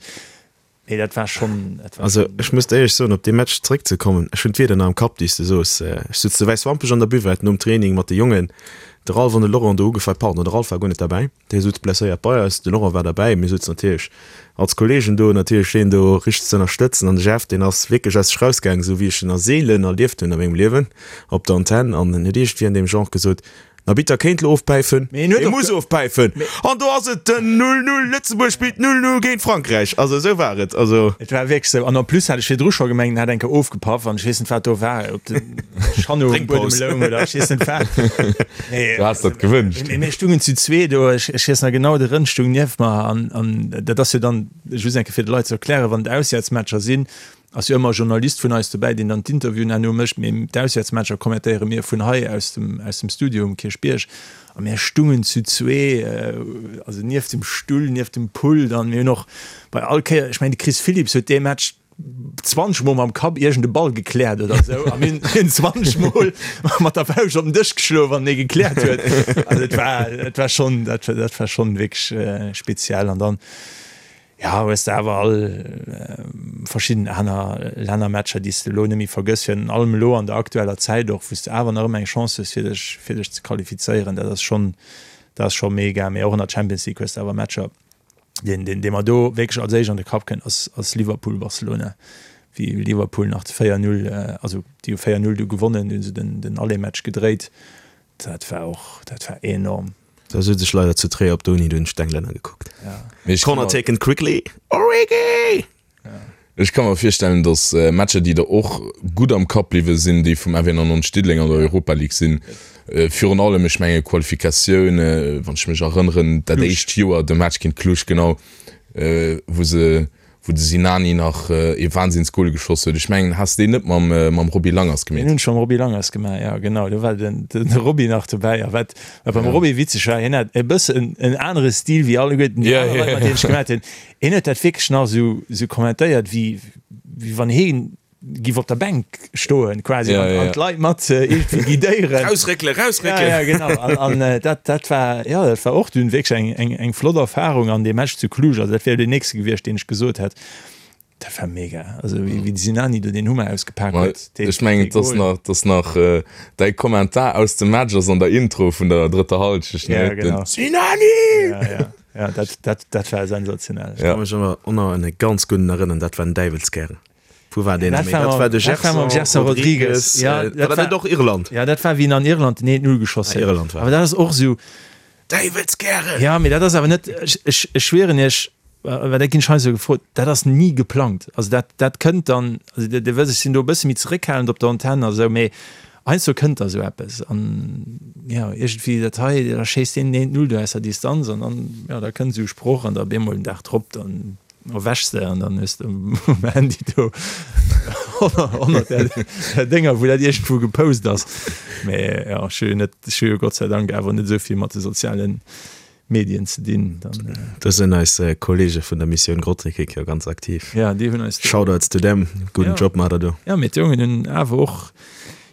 Nee, dat war schon, dat war
Also
schon.
ech muss der éierlech soen, op dee Match zréckzekommen, ech hunn d'Wierder nach am Kapp, déi s de soos. Ech sutz zu Wäiswampech an der Buvette nom Training mat de Jongen, de Ralph an de Laurent do ugefall, pardon, de Ralph war guer net derbäi, dee sutz blesséiert bei eis, de Laurent war derbäi, mir sutzen natierlech als Kollegen do natierlech deen do richteg ze ënnerstëtzen an de Jeff, deen ass wierklech aus sech rausgaangen, esou wéi ech en a seelen erlieft hunn a mengem Liewen op der Antenn an en huet iergendwéi an deem Genre gesot, Den Arbitter kéint lo ofpäifen,
Mee en huet
e
och
muss
ge-
ofpäifen an do ass et den 0, 0, Lëtzebuerg spillt 0, 0 géint Frankräich. Also esou war et. Also.
Et war wierklech esou. An en plus hat ech virdru scho gemengt, en hätt eng Kéier ofgepaff an ech weess net, wat do war, ob de Schanno um Buedem
Drénkpaus.
loung oder ech weess net wat. Mee,
Du has dat gewënscht.
Mee mir stungen zu zwee do, ech, ech weess nach genau, de Rënn stung nieft mer an, an dat ass jo dann, just eng Kéier fir de Leit ze erklären, wann et Auswäertsmatcher sinn, Ass jo ëmmer e Journalist vun eis dobäi, deen dann d'Interviewen herno mécht, mee d'Auswäertsmatcher kommentéiere mir vun hei aus dem, aus dem Studio um Kierchbierg. A mir stungen zu zwee, also nieft dem Stull, nieft dem Pult an mir hunn och bei all Kéier, ech mengen de Chris Philipps huet dee Match 20 mol mam Kapp iergend e Ball gekläert oder esou a mir hunn 20 mol mat der Fauscht op den Dësch geschloen, wann en ee gekläert huet. Also et war, et war schonn, dat, dat war schonn wierklech speziell an dann, Jo, hues de awer all verschidden aner Lännermatcher, déi s de elo net méi vergëss, virun allem elo an der aktueller Zäit och, wou s de awer nach ëmmer eng Chance hues, fir dech, fir dech ze qualifizéieren. Dat ass schonn, dat ass scho mega. Mee och an der Champions League hues de awer Matcher. Deen, deen, dee mer do wierklech als éischt an de Kapp kënnt, ass, ass Liverpool-Barcelona, wéi Liverpool nach 4, 0, also déi hu 4, 0 du gewonnen, du hu se den, den Aller-Match gedréit. Dat war och, dat war enorm.
Da sutz ech leider zu Tréier op der Uni, do hunn ech d'Englänner gekuckt.
Mee ech
Corner taken quickly, Origi!
Ech ka mer virstellen, datt Matcher, déi der och gutt am Kapp bliwwe sinn, déi vum FW 99 Diddeleng an der Europa League sinn. Virun allem, ech menge Qualifikatioun, wann ech mech erënneren, dat éischt Joer, de Match géint Cluj, genau, wou se, wou de Sinani nach ee Wahnsinnsgol geschoss huet. Ech mengen, has de deen net mam, mam Roby Langers
gemeet? Deen hunn ech mam Roby Langers gemaach, jo, genau. Do war den, de Roby nach dobäi. A wat, wat beim Roby witzeg war, hien hat e bëssen en anere Stil wéi alleguerten déi aner Leit, mat deenen ech gemaat hunn. Hien huet dat wierklech nach esou, esou kommentéiert, wéi, wéi wann hien giff op der Bänk stoen quasi ja, an, an d'Leit mat äh, irgendwie guidéieren.
Rausréckele, rausréckelen!
Ja, ja, genau. An, an äh, dat, dat war, ja, dat war och dunn wierklech eng, eng, eng flott Erfahrung an dee Match zu Cluj, also dat wär jo deen nächste gewiescht, deen ech gesot hätt. Dat war mega. Also wéi, wéi de Sinani do deen Hummer ausgepak
huet. Dee, Ech mengen, et ass nach, et ass nach äh, däi Kommentar aus dem Match ass an der Intro vun der drëtter Halschecht,
ne? Ja, genau.
Den Sinani!
Ja, ja. Ja, dat, dat, dat war sensationell.
Ech ka mech awer och nach un e ganz gudden erënneren, dat war den Däiwelskär. Wou war deen?
Dat war de Gerson Rodrigues.
Ja, dat war net och Irland?
Ja, dat war wéi en an Irland den 1-0 geschoss huet.
Irland war.
Awer dat ass och esou.
Däiwelskären!
Ja, mee dat ass awer net, ech, ech, ech schwieren Iech, well dat ginn ech heiansdo gefrot, dat ass ni geplangt. Also dat, dat kënnt dann, also Dir, Dir wësst, ech sinn do e bësse méi zeréckhalend op der Antenn a sou, mee heiansdo kënnt da sou eppes an, jo, iergendwéi dat hei, da schéisst deen den 1-0 do aus der Distanz an dann, jo, da kënnt esou e Sproch an da op eemol den Dag drop, dann erwächs de an dann hues de um Handy do 100 där Dénger, wou dat iergendwou gepost ass. Mee jo, ech hu jo net, ech hu jo Gott sei Dank awer net esou vill mat de soziale Medien ze dinn. Dann.
Do sinn eis Kollege vun der Missioun Grottekik jo ganz aktiv.
Ja, déi hunn eis.
Shoutouts to them, gudden Job maacht der do.
Ja, mee d'Jongen hunn awer och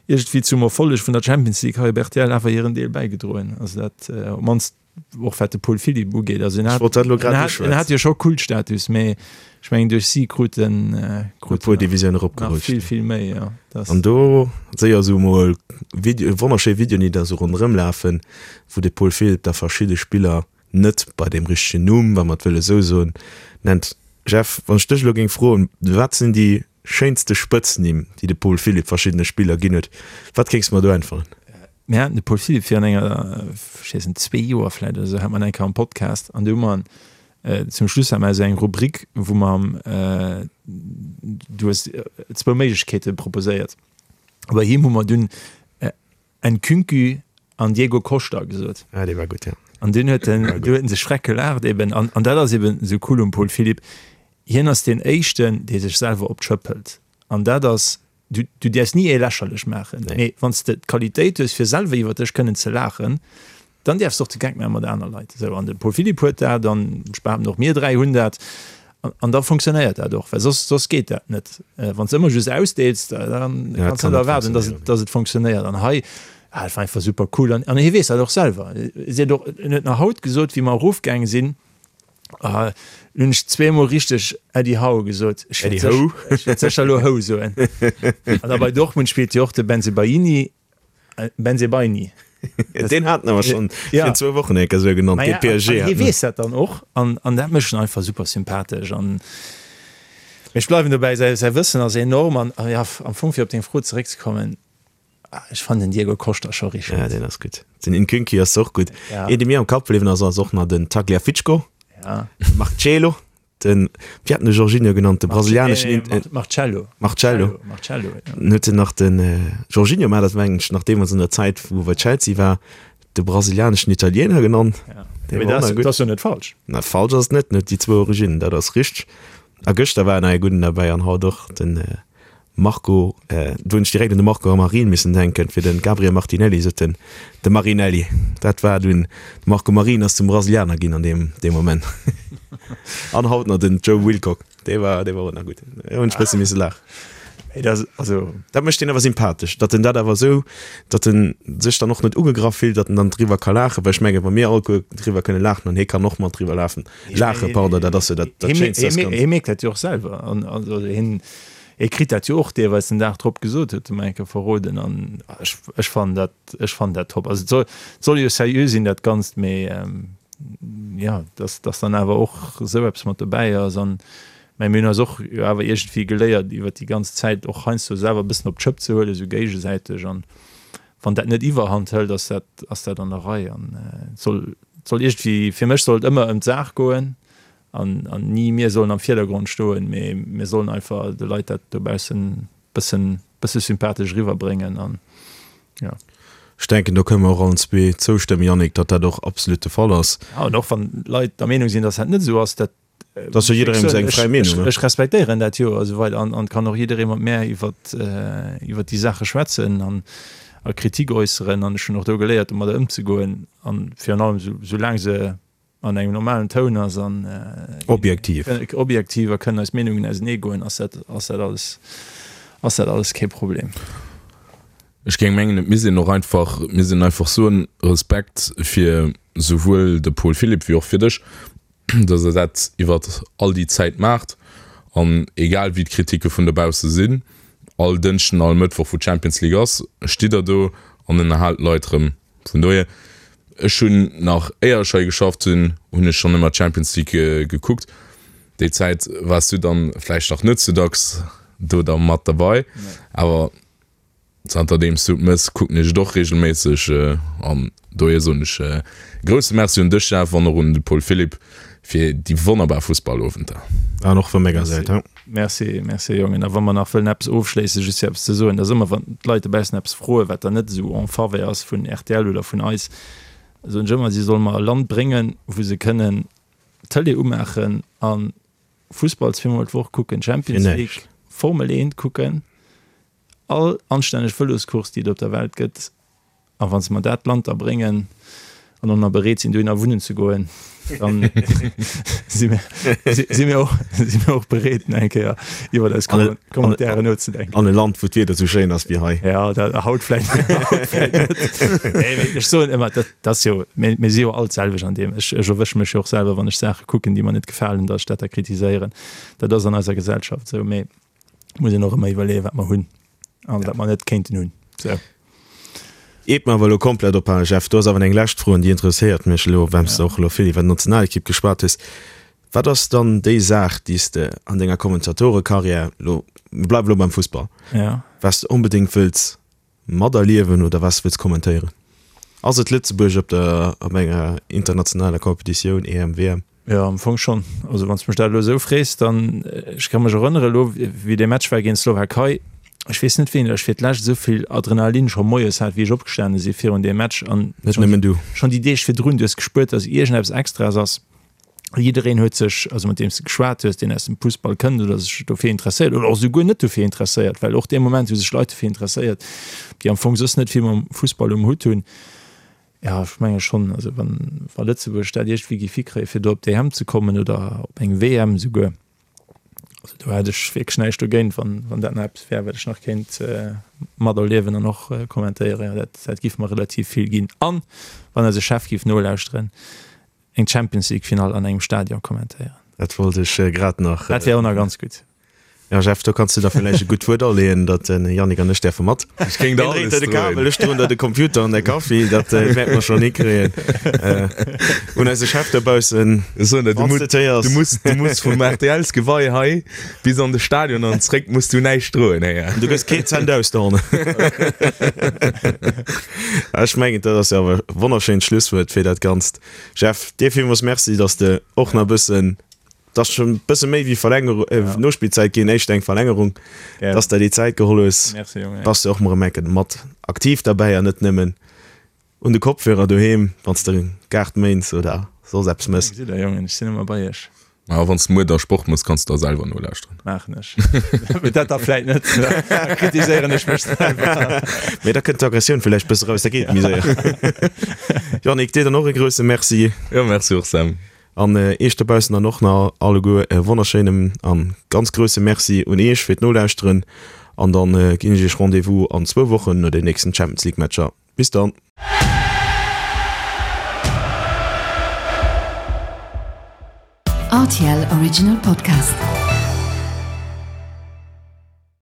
iergendwéi zum Erfolleg vun der Champions League hei op rtl awer hiren Deel bäigedroen. Also dat op d'mannst och wat de Paul Philipp ugeet. Also en
hat,
en hat, en hat jo scho Kultstatus, mee ech mengen duerch si krut en,
krut en puer Divisioune eropgerutscht.
Nach vill, vill méi, jo.
Das. An do séier esou mol Video, wonnerschéi Videoen, déi da sou ronderëm lafen, wou de Paul Philipp da verschidde Spiller net bei deem richtegen Numm, wa mer et wëlle sou soen, nennt. Jeff, wann ech dech elo géing froen, wat sinn déi schéinste Spëtznimm, déi de Paul Philipp verschiddene Spiller ginn huet, wat kéings de mer do äntweren?
Mir haten de Paul Philipp virun enger, ech weess net, zwee Joer vläicht oder esou, hat mer en eng Kéier am Podcast an do hu mer en, zum Schluss hat mer esou eng Rubrik, wou mer, du hues zwou Méiglechkeete proposéiert, bei him hu mer dunn Nkunku an Diego Costa gesot.
Ah, dee war gutt, ja.
An dunn huet en, du huet en sech schreck gelaacht eben. An, an dat ass eben esou cool um Paul Philipp. Hien ass deen Éischten, dee sech selwer op d'Schëpp hëlt. An dat ass, du, du däerfs ni ee lächerlech maachen, nee. Mee wann s de d'Qualitéit hues, fir selwer iwwer dech kënnen ze laachen, Dann däerfs de och de Geck maache mat aner Leit. Esou, an de Paul Philipp huet dat, an ech behaapten och mir 3 hunn dat, an da funktionéiert dat och, well soss, soss geet dat net. Wann s de ëmmer just ausdeels, da kanns de net erwaarden, dass et, dass et funktionéiert. An hei, ah, dat war einfach super cool. An, an hie weess dat och selwer. Si huet och, en huet nach haut gesot, wéi mer erofgaange sinn, ah, hunn ech zweemol richteg Eddie Howe gesot. Ech wäert
Eddie Howe?
Ech wäert sécher elo Howe soen. An da bei Dortmund spillt jo och de Bensebaini. Bensebaini.
Deen haten awer schonn
Ja.
virun zwou Wochen eng Kéier esou genannt,
Maja,
dee PSG
an hie
hat.
weess dat dann och an, an dat mécht en einfach super sympathesch an mee ech bleiwen dobäi, säi, säi Wëssen ass enorm an, a ja, am Fong fir op deng Fro zeréckzekommen, ech fannen den Diego Costa scho richteg
Ja,
gutt.
deen ass gutt. Den Nkunku ass och gutt.
Ja.
Een, dee mir am Kapp bliwwen ass, ass och nach den Tagliafico,
Ja.
de Marcelo. Den, wéi hat en de Jorginho genannt, de brasilianeschen
Nee, nee, Marcello.
Marcello.
Marcello, ja.
Dann huet en nach den Jorginho, mä dat mengen ech nach deemools an der Zäit, wou e bei Chelsea war, de brasilianeschen Italiener genannt.
Ja.
Dee
Mee
war och
dat
nach gutt.
ass jo net falsch.
Na, falsch ass et net, en huet déi zwou Originnen, dat ass richteg. A gëschter war nach ee gudden derbäi an haut och, den Marco, do hunn ech direkt un de Marco Marin missen denken, fir de Gabriel Martinelli sot en de Marinelli. Dat war dunn, de Marco Marin ass zum Brasilianer ginn an deem deem Moment. An haut nach den Joe Wilcock, dee war dee war och nach gutt. Do hunn ech bësse misse laachen.
Mee dat ass, also.
Dat mécht deen awer sympathesch, datt en dat awer esou, datt en sech dann och net ugegraff fillt, datt en dann driwwer ka laachen, well ech mengen, wa mir alleguer driwwer kënne laachen an hie kann och mat driwwer lafen, laachen, pardon, dat ass jo dat dat Schéinst, dat
Ganzt. Hie mierkt dat jo och selwer an also hien. Hie kritt dat jo och deelweis den Dag drop gesot, huet e mer eng Kéier verroden. An ech, ech fannen dat, ech fannen dat top. Also et soll, et soll jo seriö sinn dat Ganzt, mee jo, dass, dass dann awer och esou eppes mat dobäi ass. An mä mir hunn eis och jo awer iergendwéi geléiert iwwert déi ganz Zäit och heiansdo selwer e bëssen op d'Schëpp ze huelen, esou géigesäiteg. An wann dat net Iwwerhand hëlt, ass dat, ass dat an der Rei. An et soll, et soll iergendwéi, fir mech soll et ëmmer ëm d'Saach goen. An ni mir sollen am Virdergrond stoen, mee mir sollen einfach de Leit dat dobaussen bëssen bësse sympathesch eriwwerbréngen an jo.
Ech denken, do kënne mer och allen zwee zoustëmmen, Yannick, datt dat och absolut de Fall ass.
Ja, an och wann Leit der Meenung sinn, datt dat net esou ass, dat.
Dat ass jo jidderengem seng fräi Meenung, ne?
Ech respektéieren dat jo a sou weider an an kann och jidderee mat mär iwwert iwwert déi Saache schwätzen an a Kritik äusseren an ech hunn och do geléiert, domadder ëmzegoen an virun allem sou soulaang se an engem normalen Toun ass an
objektiv
objektiv a kënnen eis Meenungen ausenee goen, ass dat ass dat alles ass dat alles kee Problem.
Ech géing mengen, et misst een och einfach, misst een einfach soen, Respekt fir souwuel de Paul Philipp wéi och fir dech, datt Der dat iwwert all déi Zäit maacht an egal wéi d'Kritike vun dobausse sinn, all Dënschden, all Mëttwoch wou d'Champions League ass, stitt Der do an ënnerhaalt d'Leit erëm. Vun dohier, ech hunn nach éier ech hei geschafft hunn, hunn ech schonn ëmmer d'Champions League gekuckt. Déi Zäit waars du dann vläicht nach net sou dacks do da mat derbei, awer zanter deems du et mëss, kucken ech et och reegelméisseg an dohier soen ech e grousse Merci un dech Jeff an och un de Paul Philipp fir déi wonnerbar Fussballowenter.
An och vu menger Säit.
Merci, merci Jongen. A wa mer nach wëllen eppes ofschléissen, just fir eppes ze soen, dass ëmmer wann d'Leit dobaussen eppes froen, wat dann net esou en faveur ass vun rtl oder vun eis, soen ech ëmmer, si solle mer e Land bréngen, wou se kënnen d'Tëlee umaachen a Fussball zweemol d'Woch kucken, Champions League, Formel 1 kucken, all anstänneg Vëloscourse, déi et op der Welt gëtt. A wa se mer dat Land da bréngen an och nach bereet sinn, dohinner wunnen ze goen, dann si mir, si mir och, si mir och bereet, nach eng Kéier iwwer eis Commentairen nozedenken.
An e Land, wou d'Wieder esou schéin ass wéi hei.
Ja, dat, haut vläicht, haut vläicht net. Nee, mee ech soen ëmmer, dat, dat ass jo, mir, mir si jo all d'selwecht an deem. Ech, ech erwësche mech jo och selwer, wann ech Saache kucken, déi mer net gefalen, datt ech dat da kritiséieren. Dat ass an eiser Gesellschaft esou. Mee muss een och ëmmer iwwerleeën, wat mer hunn an wat mer net kéinten hunn. Sou.
Iert mer awer elo komplett ophalen, Jeff, do ass awer eng lescht Fro an déi interesséiert mech elo, well s de och elo vill iwwer d'Nationalekipp geschwat hues. Wat ass dann déi Saach, déi s de an denger Kommentatorekarriär elo, mir bleiwe elo beim Fussball, wat s de onbedéngt wëlls materliewen oder wat s de wëlls kommentéieren? Ass et Lëtzebuerg op der, op enger internationaler Competitioun, EM, WM?
Jo, am Fong schonn. Also wann s de mech dat elo esou frees, dann, ech ka mech erënnere elo, wéi dee Match war géint d'Slowakei, ech weess net wéini ech fir d'lescht esou vill Adrenalin scho moies hat, wéi ech opgestane si virun deem Match an
Net nëmmen du.
schonn déi Deeg virdrun, du hues gespuert, datt iergendeppes Extraes ass. Jiddereen huet sech, also mat deem s de geschwat hues, deen aus dem Fussball kënnt oder sech dofir interesséiert oder och esouguer net dofir interesséiert, well och dee Moment hu sech Leit dofir interesséiert, déi am Fong soss net vill mam Fussball um Hutt hunn. Jo, ech menge schonn. Also wann, wa Lëtzebuerg dat iergendwéi géif hikréien, fir do op d'EM ze kommen oder op eng WM esouguer, also do hätt ech wierklech näischt dogéint, wann, wann dat nach eppes wär, wat ech nach kéint materliewen an och kommentéieren. Jo, dat, dat géif mer relativ vill ginn. An wann eise Chef géif nolauschteren, eng Champions League Finall an engem Stadion kommentéieren.
Dat wollt ech grad nach.
Dat wär och nach ganz gutt.
Ja Jeff, do kanns du der villäicht e gutt Wuert aleeën, datt den Yannick an ech däerfe mat.
Ech géing der
alles droen. De Kabel, ech droen der de Computer an de Kaffi, dat wäerte mer schonn hikréien. Un eise Chef dobaussen,
Ech soen der, du muss, du muss, du muss vum RTLs-Gewei hei bis an de Stadion an zréck muss du näischt droen, héier.
Du gëss keen Cent aus dohannen. Ech mengen, dat ass jo awer e wonnerschéint Schlusswuert fir dat Ganzt. Jeff, dir villmools Merci, datt s de och nach e bëssen Et ass schon bësse méi wéi Verlängerung, äh, ja. Nospillzäit ginn, éischt eng Verlängerung, ja. dass der déi Zäit geholl hues.
Merci, Junge.
Bass du och mol erëm enke mat aktiv derbäi an net nëmmen un de Kopfhörer doheem, wann s de Gaart méins oder soss eppes mëss.
Gesitt der, Jongen, ech sinn ëmmer bei iech.
A wann s de muer da Sport mëss, kanns de da selwer nolauschteren.
Maachen ech. Mee dat da vläit net, da kritiséieren ech mech selwer.
Mee da kënnt d'Aggressioun villäicht bësse raus, da geet et méi séier. Yannick, dir dann och e grousse Merci.
Jo, merci och, Sam.
An Iech dobaussen dann och nach alleguer e wonnerschéinem an ganz grousse Merci un Iech fir d'Nolauschteren. An dann ginn ech Iech Rendez-vous an zwou Wochen no den nächsten Champions League Matcher. Bis dann!
RTL Original Podcast.